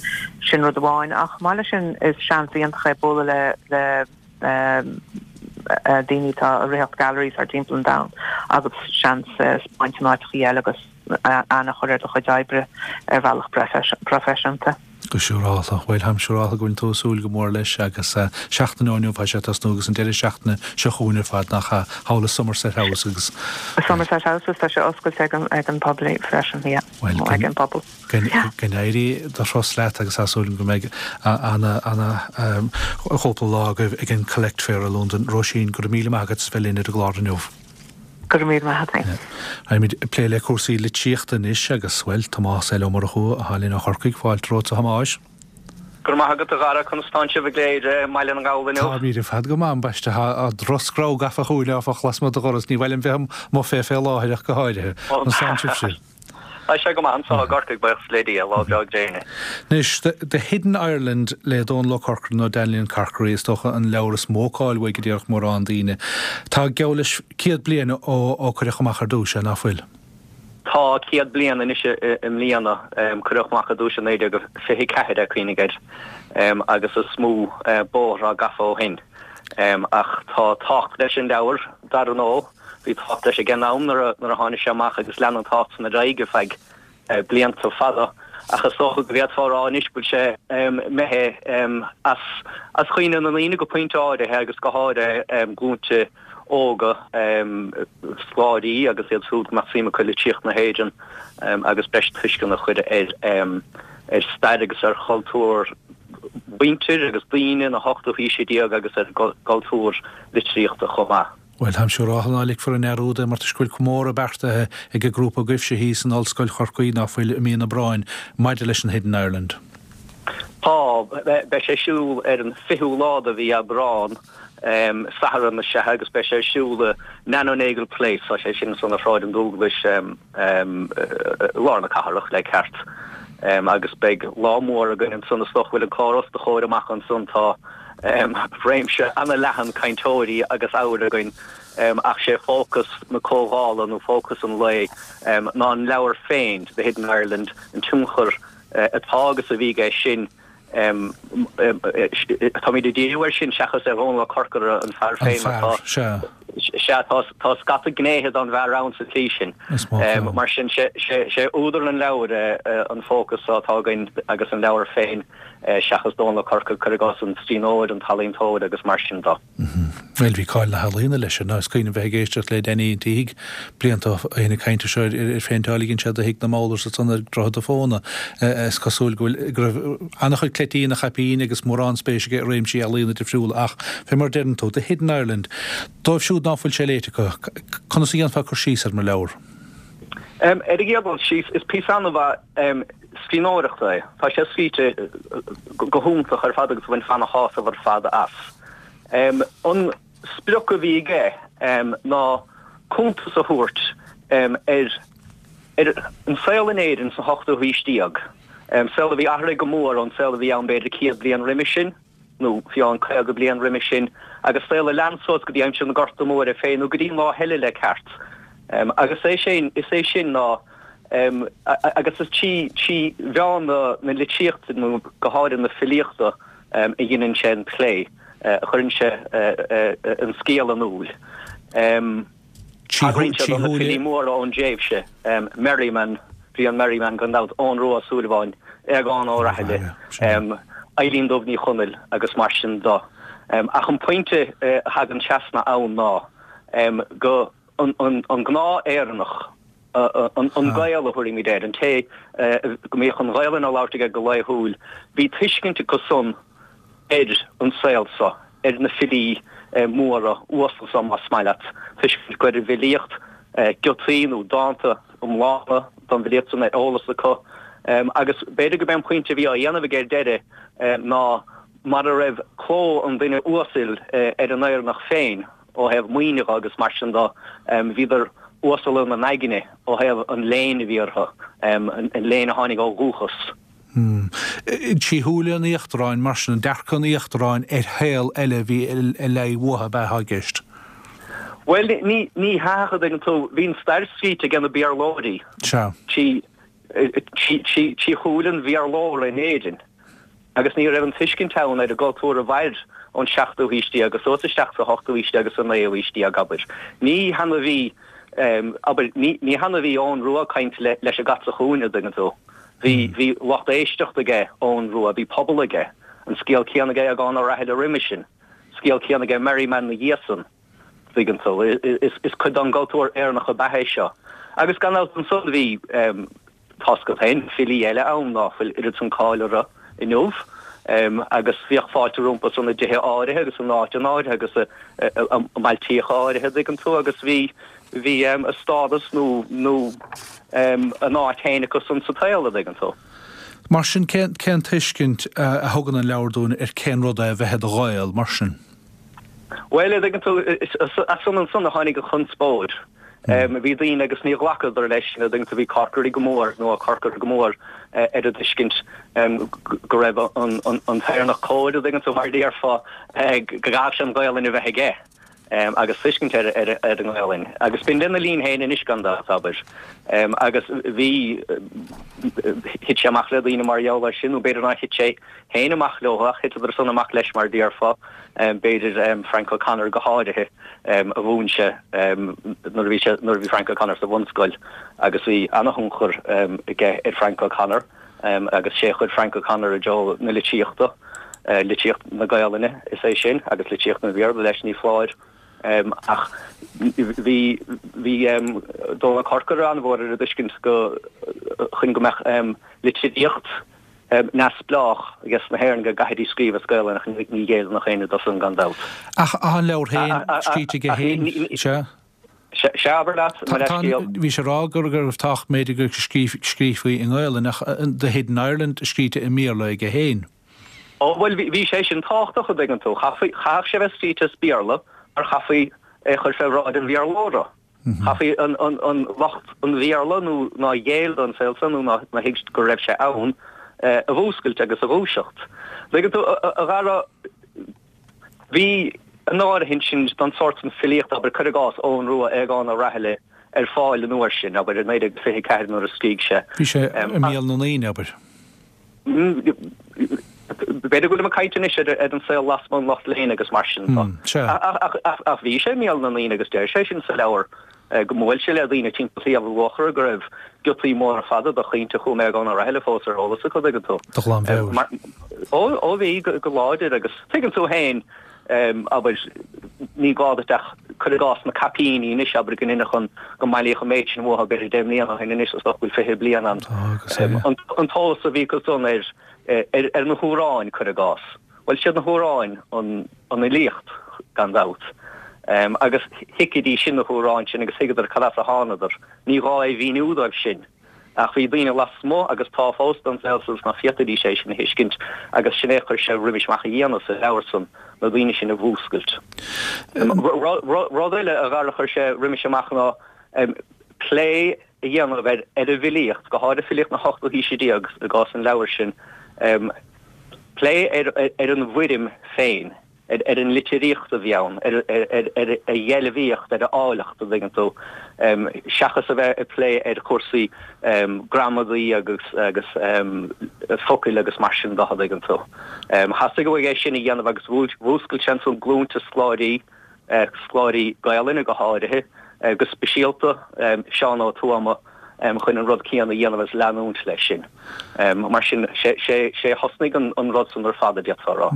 Sin rud amháin ach chomh maith leis sin is seans iontach é bualadh le le daoine atá ag ritheacht galleries thar timpeall an domhain agus seans 'speáint in áiteachaí eile agus aithne a chur ar do chuid oibre ar bhealach proifisiúnta. Go siúrálta. Bhuel, táim siúrálta go bhfuil tú ag súil go mór leis agus seachtain ó inniu tá sé ag tosnú agus an deireadh seachtaine seo chugainn ar fad, nach ea, thall i Somerset House agus. Somerset House agus tá sé oscailte ag an ag an poiblí freisin, yeah, Bhuel, ag an bpobal. Go n-éirí do thuras leat agus tá súil agam go mbeidh ana, ana chúpla lá agaibh ag an Collect Fair i Londain. Róisín, go raibh míle maith agat as bheith linn ar an gclár inniu. Go raibh míle maith agat. Raghaimid ag plé le cúrsaí litríochta anois agus, bhuel, Tomás L. Ó Murchú atá linn ó Chorcaigh. Fáilte romhat, a Thomáis. Go raibh maith agat, a Dhara. Conas tánn sibh i gCléire, i mBaile na nGall inniu? Táimid ar fad go maith, ambaiste. Tá drochscreamh gafa chugainn, áfach, lasmuigh do dhoras. Ní mhaith liom bheith amuigh fé fé láthair ach go háirithe. Conas tánn sibhse? Tá sé go maith anso i gCorcaigh, buíochas le Dia, lá breá gréine. Anois, The Hidden Ireland le Dónal Ó Corcora nó Danley Carkery is dócha an leabhar is mó cáil uaidh a déarfadh mórán daoine. Tá geall leis 100 bliain ó cuireadh amach ar dtús é, ná fuil? Tá, 100 bliain anois i mbliana. Cuireadh amach ar dtús i 1924 é, cuimhnigh air, agus is mó bóthar atá gafa ó shin. Ach tá tábhacht leis an leabhar, dar ndóigh. Bhí tábhacht leis ag an am nuair a tháinig sé amach agus lean an tábhacht san ar aghaidh ar feadh blianta fada ach is dócha go bhféadfá a rá anois go bhfuil sé imithe as cuimhne na ndaoine go pointe áirithe agus go háirithe glúinte óga, scoláirí agus iad siúd go mbeadh suim acu i litríocht na hÉireann agus breis tuisceana a chur ar stair agus ar chultúr mhuintir agus daoine na hochtú haoise déag agus ar gcultúr litríochta chomh maith. Bhuel, táim siúráltha ná ligfear i ndearúd é mar toisc go bhfuil comóradh beartaithe ag an grúpa agaibhse thíos in Ollscoil Chorcaí, ná fuil, i mí an Aibreáin, maidir leis an Hidden Ireland. Tá. Beidh sé ar siúl ar an 20ú lá de mhí Aibreán, Satharn is ea, agus beidh sé ar siúl i Nano Nagle Place, tá sé sin ansan ar Shráid an Dúglais, i lár na cathrach le ceart, agus beidh lá mór againn ansan, is dócha go bhfuil an clár os do chomhair amach ansan, tá. réimse an-leathan cainteoirí agus ábhair againn ach sé fócas na comhdhála nó fócas an lae ná an leabhar féin, The Hidden Ireland, an tionchar atá agus a bhí aige sin. Táimid ag díriú air sin seachas ar Dhónal Ó Corcora, an fear féin, mar tá, sea, tá scata gnéithe den bhfear ann sa tslí sin. Mar sin, sé údar an leabhair an fócas atá againn agus an leabhar féin. seachas Dónal Ó Corcora, cuir i gcás, an scríbhneoir, an t-ealaíontóir agus mar sin de. Bhuel, bhí cáil na healaíona leis sin. Is cuimhin liom bheith ag éisteacht le Danny an tSíthigh blianta ó shin ag caint anseo ar ar phéinteáil a dhein sé do thigh na mBowlers ansan ar Dhroichead a' Phóna. Is cosúil go bhfuil, go raibh an-chuid cleití ina chaipín agus mórán spéis aige i réimsí ealaíona difriúla ach, fé mar a deireann tú, The Hidden Ireland, dóibh siúd ná fuil sé léite acu, conas a dhéanfá cur síos air mar leabhar? Ar an gcéad dul síos, is píosa an-mhaith scríbhneoireachta é. Tá sé scríte go hiontach ar fad agus bhainfeá ana-shásamh ar fad as. An sprioc a bhí aige ná cuntas a thabhairt ar ar an saol in Éirinn sa hochtú haois déag, saol a bhí athraithe go mór ón saol a bhí ann b'fhéidir 100 bliain roimhe sin. nó fiú amháin 50 bliain roimhe sin, agus saol a lean suas go dtí aimsir na Gorta Móire féin, nó go dtí an lá eile le ceart. Agus é sin, is é sin ná, agus is trí, trí mheán na, na litríochta, nó go háirithe na filíochta, a dheineann sé an plé, a chuireann sé an scéal in iúl. Tagraíonn sé do na filí móra ón dtréimhse, Merriman, Brian Merriman gan dabht, Eoghan Rua Ó Súilleabháin, Aogán Ó Rathaille, Eilín Dubh Ní Chonaill agus mar sin de. Ach an pointe a thagann trasna ann ná go an gnáth-Éireannach. An Gael a thabharfaimid air, an té go mbíodh an Ghaelainn á labhairt aige go laethúil, bhí tuiscint acu san ar an saol so, ar na filí móra uasal so, más maith leat, tuiscint acu ar an bhfilíocht, giotaí nó dánta iomlána den bhfilíocht san ar eolas acu. Agus b'fhéidir gurb é an pointe a bhí á dhéanamh aige ar deireadh ná mara raibh cló an duine uasail ar an Éireannach féin, ó thaobh maoine dhe agus mar sin de, bhíodar uasal ina n-aigne ó thaobh an léinn a bhí orthu, an léann a tháinig ó dhúchas. Trí shúile an íochtaráin, mar sin, dearcadh an íochtaráin ar shaol eile a bhí ag leí uathu ab ea atá i gceist? Bhuel, ní hea ach an dtuigeann tú, bhí an stair scríte ag na Béarlóirí. Sea. Trí shúile an Bhéarlóra in Éirinn. Agus ní raibh an tuiscint ann ar an gcultúr a mhair ón seachtú haois déag suas isteach sa hochtú haois déag agus sa naoú haois déag, abair. Ní hann a bhí, abair, ní hann a bhí Eoghan Rua ag caint leis an gcat sa chúinne, an dtuigeann tú. Bhí, bhí lucht éisteachta aige Eoghan Rua, bhí pobal aige. An scéal céanna aige Aogán Ó Raithile roimis sin. Scéal céanna aige Merriman 'na dhiaidh san. Tuigeann tú. Is cuid den gcultúr Éireannach ab ea é seo. Agus gan dabht ansan bhí, tá's agat féin, filí eile ann ná fuil oiread san cáil orthu inniu agus bhíodh fáilte rompu san i dtithe áirithe agus in áiteanna áirithe agus i mbailtíocha áirithe, dtuigeann tú, agus bhí, bhí a stádas nó, nó a n-áit féin acu san sa tsaol, a dtuigeann tú. Mar sin, cén, cén tuiscint a thugann an leabhar dúinn ar cén rud é a bheith i do Ghael, mar sin? Bhuel, a dtuigeann tú, as san ansan a tháinig an chonspóid. Bhí daoine agus níor ghlacadar leis, a dtuigeann tú, bhí Corkery go mór, nó Ó Corcora go mór ar an dtuiscint go raibh an t-Éireannach cóir, a dtuigeann tú, mar a déarfá, go gcaithfeadh sé an Ghaelainn a bheith aige agus tuiscint ar an nGaelainn. Agus b'in lena linn féin anois gan dabht, abair. Agus bhí, thit sé amach le daoine mar gheall air sin, nó b'fhéidir nár thit sé féin amach leo ach thiteadar san amach leis mar a déarfá, b'fhéidir Frank O'Connor go háirithe a mhúin sé nuair a bhí sé, nuair a bhí Frank O'Connor sa bhunscoil agus bhí ana-thionchar aige ar Frank O'Connor agus sé a chuir Frank O'Connor i dtreo na litríochta, litríocht na Gaolainne is é sin agus litríocht an Bhéarla leis ní foláir. Ach bhí, bhí Dónal Corcora an-mhór ar an dtuiscint go, chun go mbeadh litríocht neamhspleách ages na hÉireann go gcaithfidís scríobh as Gaelainn ach ní ghéilleann ach éinne dó san gan dabht. Ach tá an leabhar féin scríte aige féin, sea? Sea, abair leat, mo leithscéal. Bhís ag rá go raibh tábhacht b'fhéidir go scríofaí i nGaelainn ach The Hidden Ireland scríte i mBéarla aige féin. Ó bhuel bhí sé sin tábhachtach a dtuigeann tú. Chaithfeadh sé bheith scríte as Béarla mar chaithfí é a chur fé bhráid an Bhéarlóra. Chaithfí an lucht an Bhéarla nó nár ghéill don saol san nó nár thuig go raibh sé ann a mhúscailt agus a dhúiseacht. Tuigeann tú, a Dhara, bhí an áirithint sin don sórt san filíochta, abair, cuir i gcás, Eoghan Rua, Aogán Ó Raithile, ar fáil an uair sin, abair, i 1924 nuair a scrígh sé. Bhí sé i mbéal na ndaoine, abair. B'fhéidir go bhfuilim ag caint anois ar an saol lasmuigh an lucht léinn agus mar sin de. Ach bhí sé i mbéal na ndaoine agus deir sé sin sa leabhar go mbuail sé le daoine timpeall Shliabh Luachra go raibh giotaí móra fada de chaointe a chum Aogán Ó Raithile fós ar eolas acu, tuigeann tú. De ghlanmheabhair. Ó bhí, go láidir agus tuigeann tú féin abair, ní gá duit ach, cuir i gcás, na caipíní anois, abair, go n-inseoinn go mbailíodh an méid sin uathu b'fhéidir 10 mbliana ó shin anois, is dócha go bhfuil 20 bliain ann. An t-eolas a bhí acu san ar, ar na hamhráin, cuir i gcás. Bhuel, siad na hamhráin an fhilíocht, gan dabht. Agus thuigfidís sin na hamhráin sin agus thuigeadar cad as a thánadar. Ní gá é mhíniú dóibh sin. Ach bhí daoine lasmuigh, agus tá fós, den saol san ná féadfaidís é sin a thuiscint, agus sin é a chuir sé roimis amach a dhéanamh sa leabhar san, na daoine sin a mhúscailt. Rud eile, a Dhara, a chuir sé roimis amach ná plé a dhéanamh ar an bhfilíocht, go háirithe filíocht na hochtú haoise déag i gcás an leabhair sin, plé ar an bhfoirm féin. ar an litríocht a bhí ann, ar a dheilbhíocht, ar a áilleacht, an dtuigeann tú, seachas a bheith ag plé ar chúrsaí gramadaí agus agus focail agus mar sin de, an dtuigeann tú. Theastaigh uaidh é sin a dhéanamh agus mhúscail sé ansan glúnta scoláirí, scoláirí Gaelainne go háirithe, go speisialta Seán Ó Tuama, chun an rud céanna a dhéanamh agus leanúint leis sin. Mar sin, sé a thosnaigh an rud san ar fad, a d'fhéadfá a rá.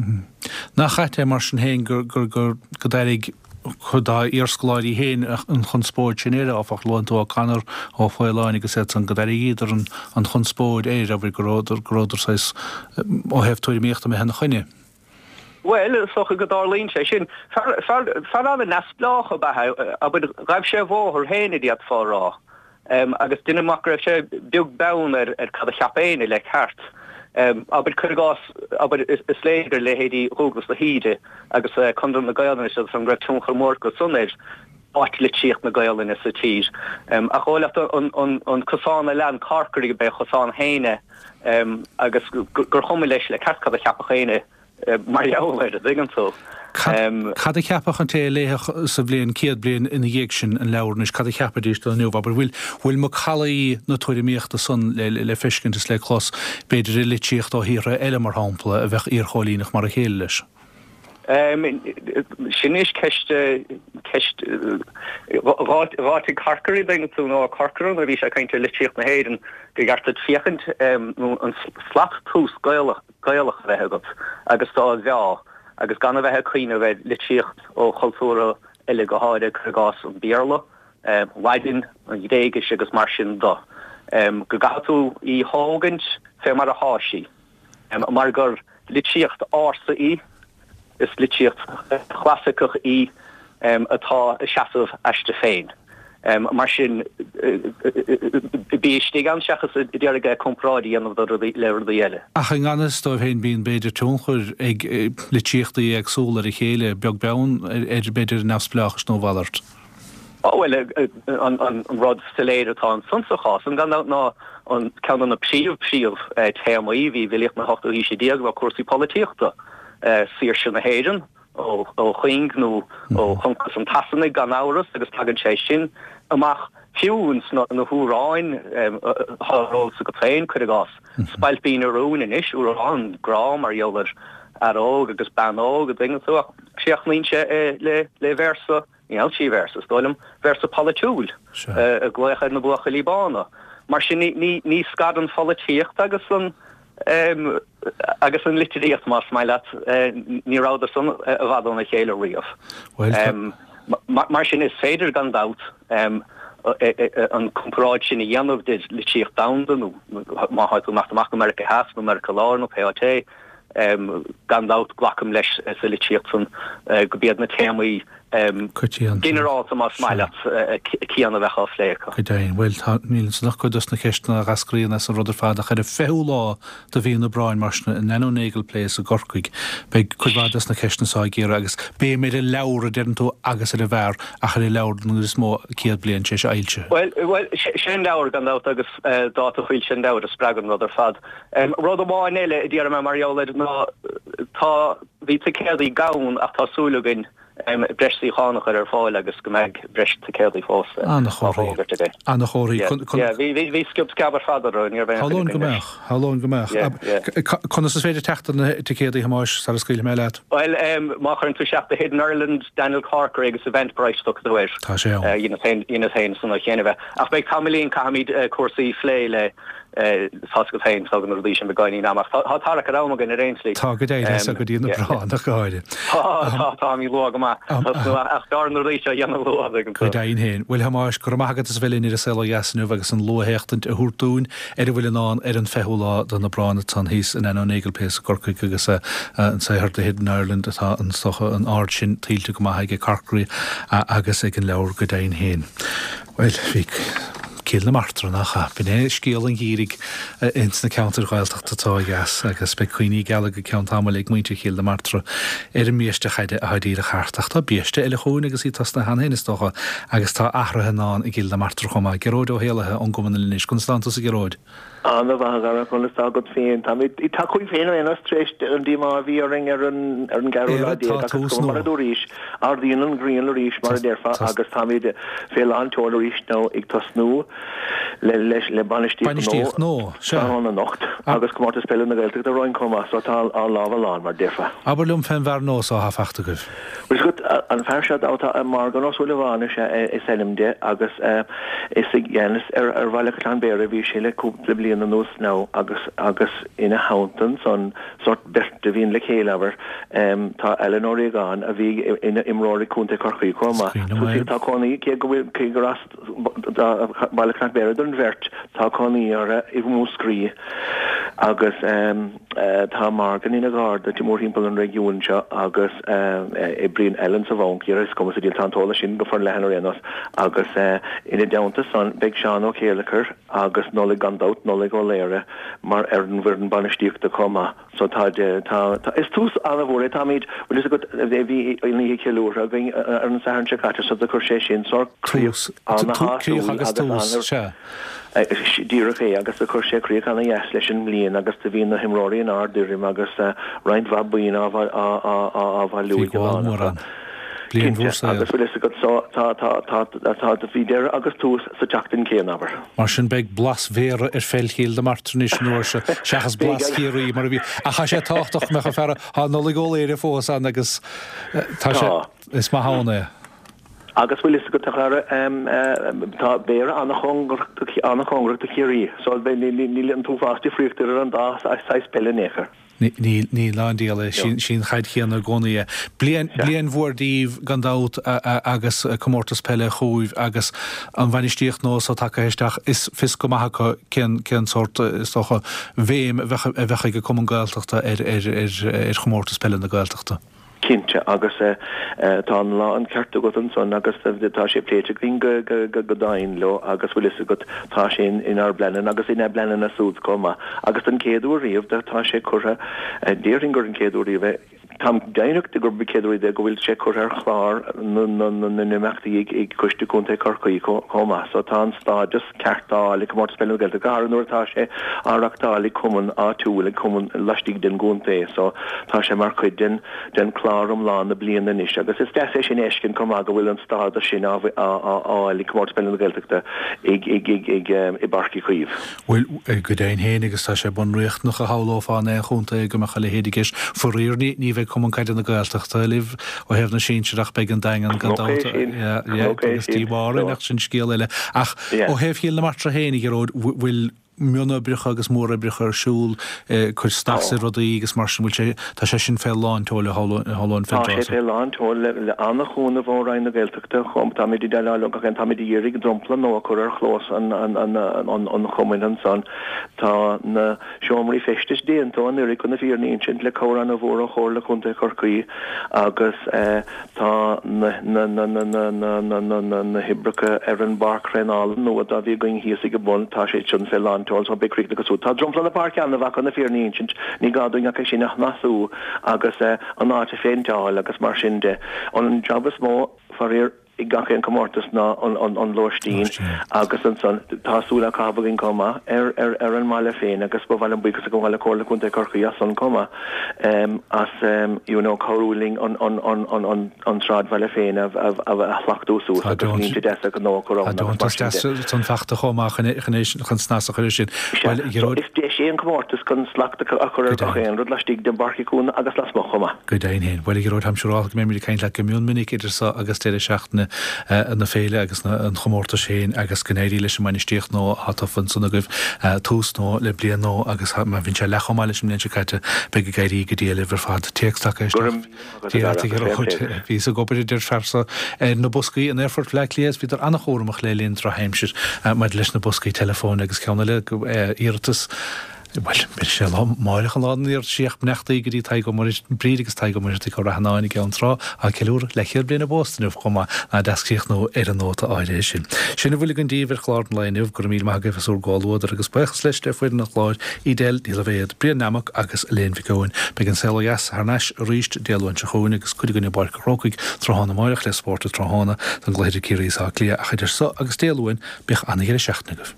Nach ait é mar sin féin gur, gur, gur, go d'éirigh. cuid dá iarscoláirí féin an chonspóid sin air, áfach. Luann tú O'Connor, Ó Faoláin agus iad san, go d'airigíodar an chonspóid air, abair, go rabhadar saghas, ó thaobh tuairimíochta, imithe ina choinne. Bhuel, is dócha go dtarlaíonn sé sin. Fear an-neamhspleách ab ea é, abair, ghabh sé a bhóthar féin, a d'fhéadfá a rá. Agus deinim amach go raibh sé beag beann ar cad a cheap éinne le ceart. Abair, cuir i gcás, abair, is léir gur leithéidí Dhúglas de hÍde agus Conradh na Gaelainne is iad san go raibh tionchar mór acu san ar áit litríocht na Gaelainne sa tír. Ach dhóigh leat an cosán a lean Corkery gurb é a chosán féin é agus gur chuma leis le ceart cad a cheapfadh éinne mar gheall air, an dtuigeann tú. Cad a cheapfadh an té a léifeadh sa bhliain, 100 bliain ina dhiaidh sin, an leabhar anois, cad a cheapfaidís de inniu? Abair, bhfuil, bhfuil macallaí na tuairimíochta san le, le feiscint is le clos, b'fhéidir i litríocht ó thíortha eile, mar shampla, a bheadh iarchóilíneach mar a chéile leis? Sin anois ceist, ceist, dh'áitigh Corkery, an dtuigeann tú, nó Corcoran, nuair a bhí sé ag caint ar litríocht na hÉireann, gur cheart duit féachaint, nó an slat tomhais Gaelach, Gaelach a bheith agat agus do á mheá agus gan a bheith ag cuimhneamh ar litríocht ó chultúrtha eile, go háirithe, cuir i gcás, an Béarla, Laidin, an Ghréigis agus mar sin de. Go gcaithfidh tú í thógaint fé mar athá sí, mar gur litríocht ársa í. Is litríocht chlasaiceach í atá ag seasamh aisti féin. Mar sin, bí istigh ann seachas ag iarraidh comparáid a dhéanamh le rudaí eile. Ach i ngan fhios dóibh féin, bíonn, b'fhéidir, tionchar ag litríochtaí éagsúla ar a chéile, beag beann ar, b'fhéidir, a neamhspleáchas nó a mhalairt. Bhuel, an rud soiléir atá ansan sa chás san, gan dabht, ná an ceann de na príomh, príomh téamaí a bhí i bhfilíocht na hochtú haoise déag ná cúrsaí polaitíochta, saoirse na hÉireann ó chuing nó ó choncas an tSasanaigh, gan amhras, agus tagann sé sin amach fiú ins na hamhráin atá ar eolas agat féin, cuir i gcás, Spailpín an Rúin anois, amhrán grá mar gheall ar fhear óg agus bean óg, an dtuigeann tú, ach críochnaíonn sé le véarsa Níl sí véarsa, is dóigh liom, véarsa polaitiúil ag glaoch ar na buachaillí bána. Mar sin ní scarann pholaitíocht agus an agus an litríocht, más maith leat, ní rabhadar san i bhfad óna chéile riamh. Mar sin is féidir gan dabht an comparáid sin a dhéanamh idir litríocht domhanda nó má tá tú ag imeacht amach go Meiriceá Theas nó Meiriceá Láir nó pé áit é, Gan dabht, glacaim leis sa litríocht san gurb iad na téamaí ginearálta, más maith leat, céanna a bheadh á phlé acu. Go deimhin. Bhuel, tá, níl ansan ach cuid dos na ceisteanna a dh'eascraíonn as an rud ar fad, ach ar an 20ú lá de mhí an Aibreáin, mar sin, in Nano Nagle Place i gCorcaigh, beidh cuid mhaith dos na ceisteanna so á gcíoradh agus béim ar an leabhar, a deireann tú, agus ar an bhfear, ach ar an leabhar den gcuid is mó, 100 bliain tar éis a fhoilsithe. Bhuel, bhuel, sé an leabhar, gan dabht, agus dáta foilsithe an leabhair a spreag an rud ar fad. Rud amháin eile a déarfaidh mé mar gheall air ná tá, bhí ticéadaí gann ach tá súil againn breis suíochán a chur ar fáil agus go mbeidh breis ticéadaí fós á bhfógairt againn. Ana-chomharthaí. Yeah, bhí, bhí, bhí sciob sceab ar fad orthu, ní raibh aon choinne againn leis. Shamhlóinn go mbeadh, shamhlóinn go mbeadh. Conas is féidir teacht ar na ticéadaí, a Thomáis, sara scaoilfidh mé leat? Bhuel, má chuireann tú isteach The Hidden Ireland, Daniel Corkery agus Eventbrite tiocfaidh tú air. Tá sé ann. Dheineas féin san chéanna bheith. Ach beidh tamaillín, caithfimid cúrsaí a phlé le Tá's agat féin, tógann na rudaí sin beagáinín ama, ach tá tarrac ar am againn ar aon tslí. Tá, go deimhin, is go dtí an Aibreán ach go háirithe. Tá, tá, táimid luath go maith, ach b'fhearr na rudaí seo a dhéanamh luath, an dtuigeann tú. Go deimhin féin. Bhuel, a Thomáis, go raibh maith agat as a bheith linn ar An Saol Ó Dheas inniu agus an luathéachtaint a thabhairt dúinn ar a bhfuil i ndán ar an 20ú lá den Aibreán ansan thíos in Nano Nagle Place i gCorcaigh agus an saothar The Hidden Ireland atá is dócha an aird sin tuillte go maith aige Corkery agus ag an leabhar go deimhin féin. Bhuel, bhí Cill na Martra, nach ea? B'in é scéal an gheimhridh ins na ceantair Ghaeltachta atá ó dheas agus beidh cuimhní geala go ceann tamaill ag muintir Chill na Martra ar an mbiaiste chaide atá díreach thart. Ach tá biaiste eile chugainn agus í tosnaithe cheana féin, is dócha, agus tá athruithe i ndán i gCill na Martra chomh maith. Gearóid Ó hÉallaithe ón gCumann Anois. Conas tánn tusa, a Ghearóid? Ana mhaith a Dhara, conas tá agat féin? Táimid ag tacú féin ar aon nós tar éis an díomá a bhí orainn ar an ar an gceathrú lá déag ach is cuma mar a dúraís, ardaíonn an ghrian arís mar a déarfá agus táimid fé lán tseoil arís nó ag tosnú le leis le bainistíocht gnó tráthnóna anocht agus Comórtas Peile na Gaeltachta romhainn chomh maith so tá ár lámha lán mar a déarfá. Abair liom fén bhfear nua so atá fachta agaibh. Bhuel, is agat. An fear seo atá Morgan Ó Súilleabháin is ea is ainm de agus is i gceannas ar Bhaile Caisleán Bhéarra a bhí sé le cúpla bliain anuas now agus agus ina theannta ansan sórt beirt a bhíonn le chéile abair tá Alan Ó Riagáin a bhí ina imreoir ag Contae Chorcaí chomh maith. Tá cónaí cé go bhfuil cé gur as Baile Chnoc Bhéarra don bheirt tá cónaí orthu i Múscraí agus Tá Morgan ina gharda mórthimpeall an réigiúin seo agus oibríonn Alan sa bhanc, is cuma sa diabhal, tá an t-eolas sin go forleathan ar aon nós, agus ina dteannta san beidh Seán Ó Céileachair agus Nollaig gan dabht, Nollaig Ó Laoire mar ar an bhfoireann bainistíochta chomh maith. So tá, tá, tá, is tús an-mhór é, táimid, bhfuil fhios agat, bhí an oíche cheiliúrtha againn ar an Satharn seo caite so do chuir sé sin sórt críoch ana-shásúil agus ana. Díreach é, agus do chuir sé críoch ana-dheas leis an mbliain agus do bhí na himreoirí in ard-fhoirm agus roinnt mhaith boinn á bhailiú Bhí ag an gabháil lán mór acu. ann. Bliain Cinnte, mhór saoil. agus bhfuil fhios agat so, tá, tá, tá, tá, bhí deireadh agus tús sa tseachtain chéanna, abair. Mar sin beidh blas Bhéarra ar pheil Chill na Martra anois an uair seo, seachas Beidh, blas Chiarraí mar a bhí. Ach tá sé tábhachtach go mbeadh an fear, tá Nollaig Ó Laoire fós ann agus tá sé, Tá. is maith ann é. Agus bhfuil fhios agat, a chara, tá Béarra an-chóngarach do Chiarraí, so níl an t-uafás difríochta idir an dá saghas peile in aon chor. Níl, níl ná an diabhal é. Sí an chaid chéanna i gcónaí é. Bliain, bliain mhór daoibh gan dabht agus comórtas peile chugaibh agus an bhainistíocht nua so tagtha isteach, is fios go maith acu cén, cén sórt, is dócha, bhéim a bheadh, a bheadh ag an Cumann Gaeltachta ar, ar, ar, ar chomórtas peile na Gaeltachta. Cinnte, agus tá an lán ceart agat ansan agus tá sé pléite againn go domhain leo agus bhfuil fhios agat tá sé inár bpleananna agus ina bpleananna súd chomh maith. Agus don chéad uair riamh tá sé curtha, déarfainn gur an chéad uair riamh é, táim deimhneach de gurb an chéad uair riamh é go bhfuil sé curtha ar chlár na n-imeachtaí ag Coiste Contae Chorcaí chomh maith. So tá an stádas ceart á fháil ag Comórtas Peile na Gaeltachta, go háirithe nuair atá sé á reachtáil ag cumann áitiúil, ag cumann laistigh den gcontae. So tá sé mar chuid den den chlár iomlán na bliana anois agus is deas é sin a fheiscint chomh maith go bhfuil an stádas sin á fháil ag Comórtas Peile na Gaeltachta ag ag ag ag i bPáirc Uí Chaoimh. Bhuel, go deimhin féin agus tá sé bunriachtanach a shamhlófá in aon chontae go mbeadh a leithéid i gceist. Faraor ní ní bheidh Cumann Caide na Gaeltachta libh ó thaobh na sinsear ach beidh an Daingean gan Cnoc dabht. é sin, Yeah, yeah, cnoc é agus sin. díomá orainn ach sin scéal eile. Ach Yeah. ó thaobh Chill na Martra féin, a Ghearóid, bhfuil mionoibreacha agus móroibreacha ar siúl, cur snas ar rudaí agus mar sin, bhfuil sé, tá sé sin fé lán tseoil a shamhlóinn Tá sé fé lán tseoil le an-chúnamh ó Roinn na Gaeltachta chomh, táimid ag déileáil leo gach aon, táimid ag iarraidh dromchla nua a chur ar chlós an chumainn ansan. Tá na seomraí feistis déanta ó anuraidh chun na fírinne a insint le cabhair an-mhór ó Chomhairle Contae Chorcaí agus Tá na hoibreacha ar an bpáirc thraenála nua dá bhí againn thíos ag an bun, tá sé sin fé lán tseoil so beidh críochnaithe go súd. Tá dromchla na páirce an-mhaith chun na fírinne a insint, ní gá dúinn ach é sin a shnasú agus an áit a phéinteáil agus mar sin de. An jab is mó, faraor, ag gach aon comórtas ná an lóistín agus ansan tá súil á caitheamh againn chomh maith ar an mbaile féin agus ba mhaith liom buíochas a ghabháil le Comhairle Contae Chorcaí as san chomh maith. as you know cabhrú linn an sráidbhaile féin a shlachtú suas agus línte deasa gnó a chur ann agus mar sin de. Tá deontas san fachta chomh maith chun snas a chur air sin. Sea, so is deis é an comórtas chun slacht a chur ar gach aon rud laistigh de Pháirc Uí Chuana agus lasmuigh chomh maith. Go deimhin féin. Bhuel, a Ghearóid, táim siúrálta go mbeimid ag caint leat go mion minic idir seo agus deireadh seachtaine na féile agus an chomórtais féin agus go n-éirí leis an mbainistíocht nua atá tofa ansan agaibh, tús nua le bliain nua agus má bhíonn sé leath chomh maith leis an mbliain seo caite, beidh ag éirí go diail libh ar fad. Téacs tagtha isteach. Dia leat, a Ghearóid. Bhíos ag obair, a deir fear so, ar na boscaí in Aerfort Bhaile Átha Cliath is bhíodar an-chúramach le linn drochaimsir maidir leis na boscaí teileafóin agus ceann eile, iarratas, Bhuel, beidh sé lá amáireach an lá den iarratas ach beannachtaí go dtí Tadhg Ó Muircheartaigh, Bríd agus Tadhg Ó Muircheartaigh ó Rath an Áin i gCeann Trá, á ceiliúradh leathchéad bliain a bpósta inniu chomh maith, nach deas críochnú ar an nóta áirithe sin. Sin a bhfuil againn daoibh ar chlár an lae inniu. Go raibh míle maith agaibh as bhur gcomhluadar agus buíochas leis le foireann an chláir, Edel Ní Loibhéad, Brian Nammock agus Elaine Mhic Eoin. Beidh an Saol Ó Dheas thar n-ais arís Dé Luain seo chugainn agus cuid againn i bPáirc an Chrócaigh tráthnóna amáireach le spórt an tráthnóna don gcluiche idir Ciarraí is Áth Cliath ach idir so agus Dé Luain, bíodh an-dheireadh seachtaine agaibh.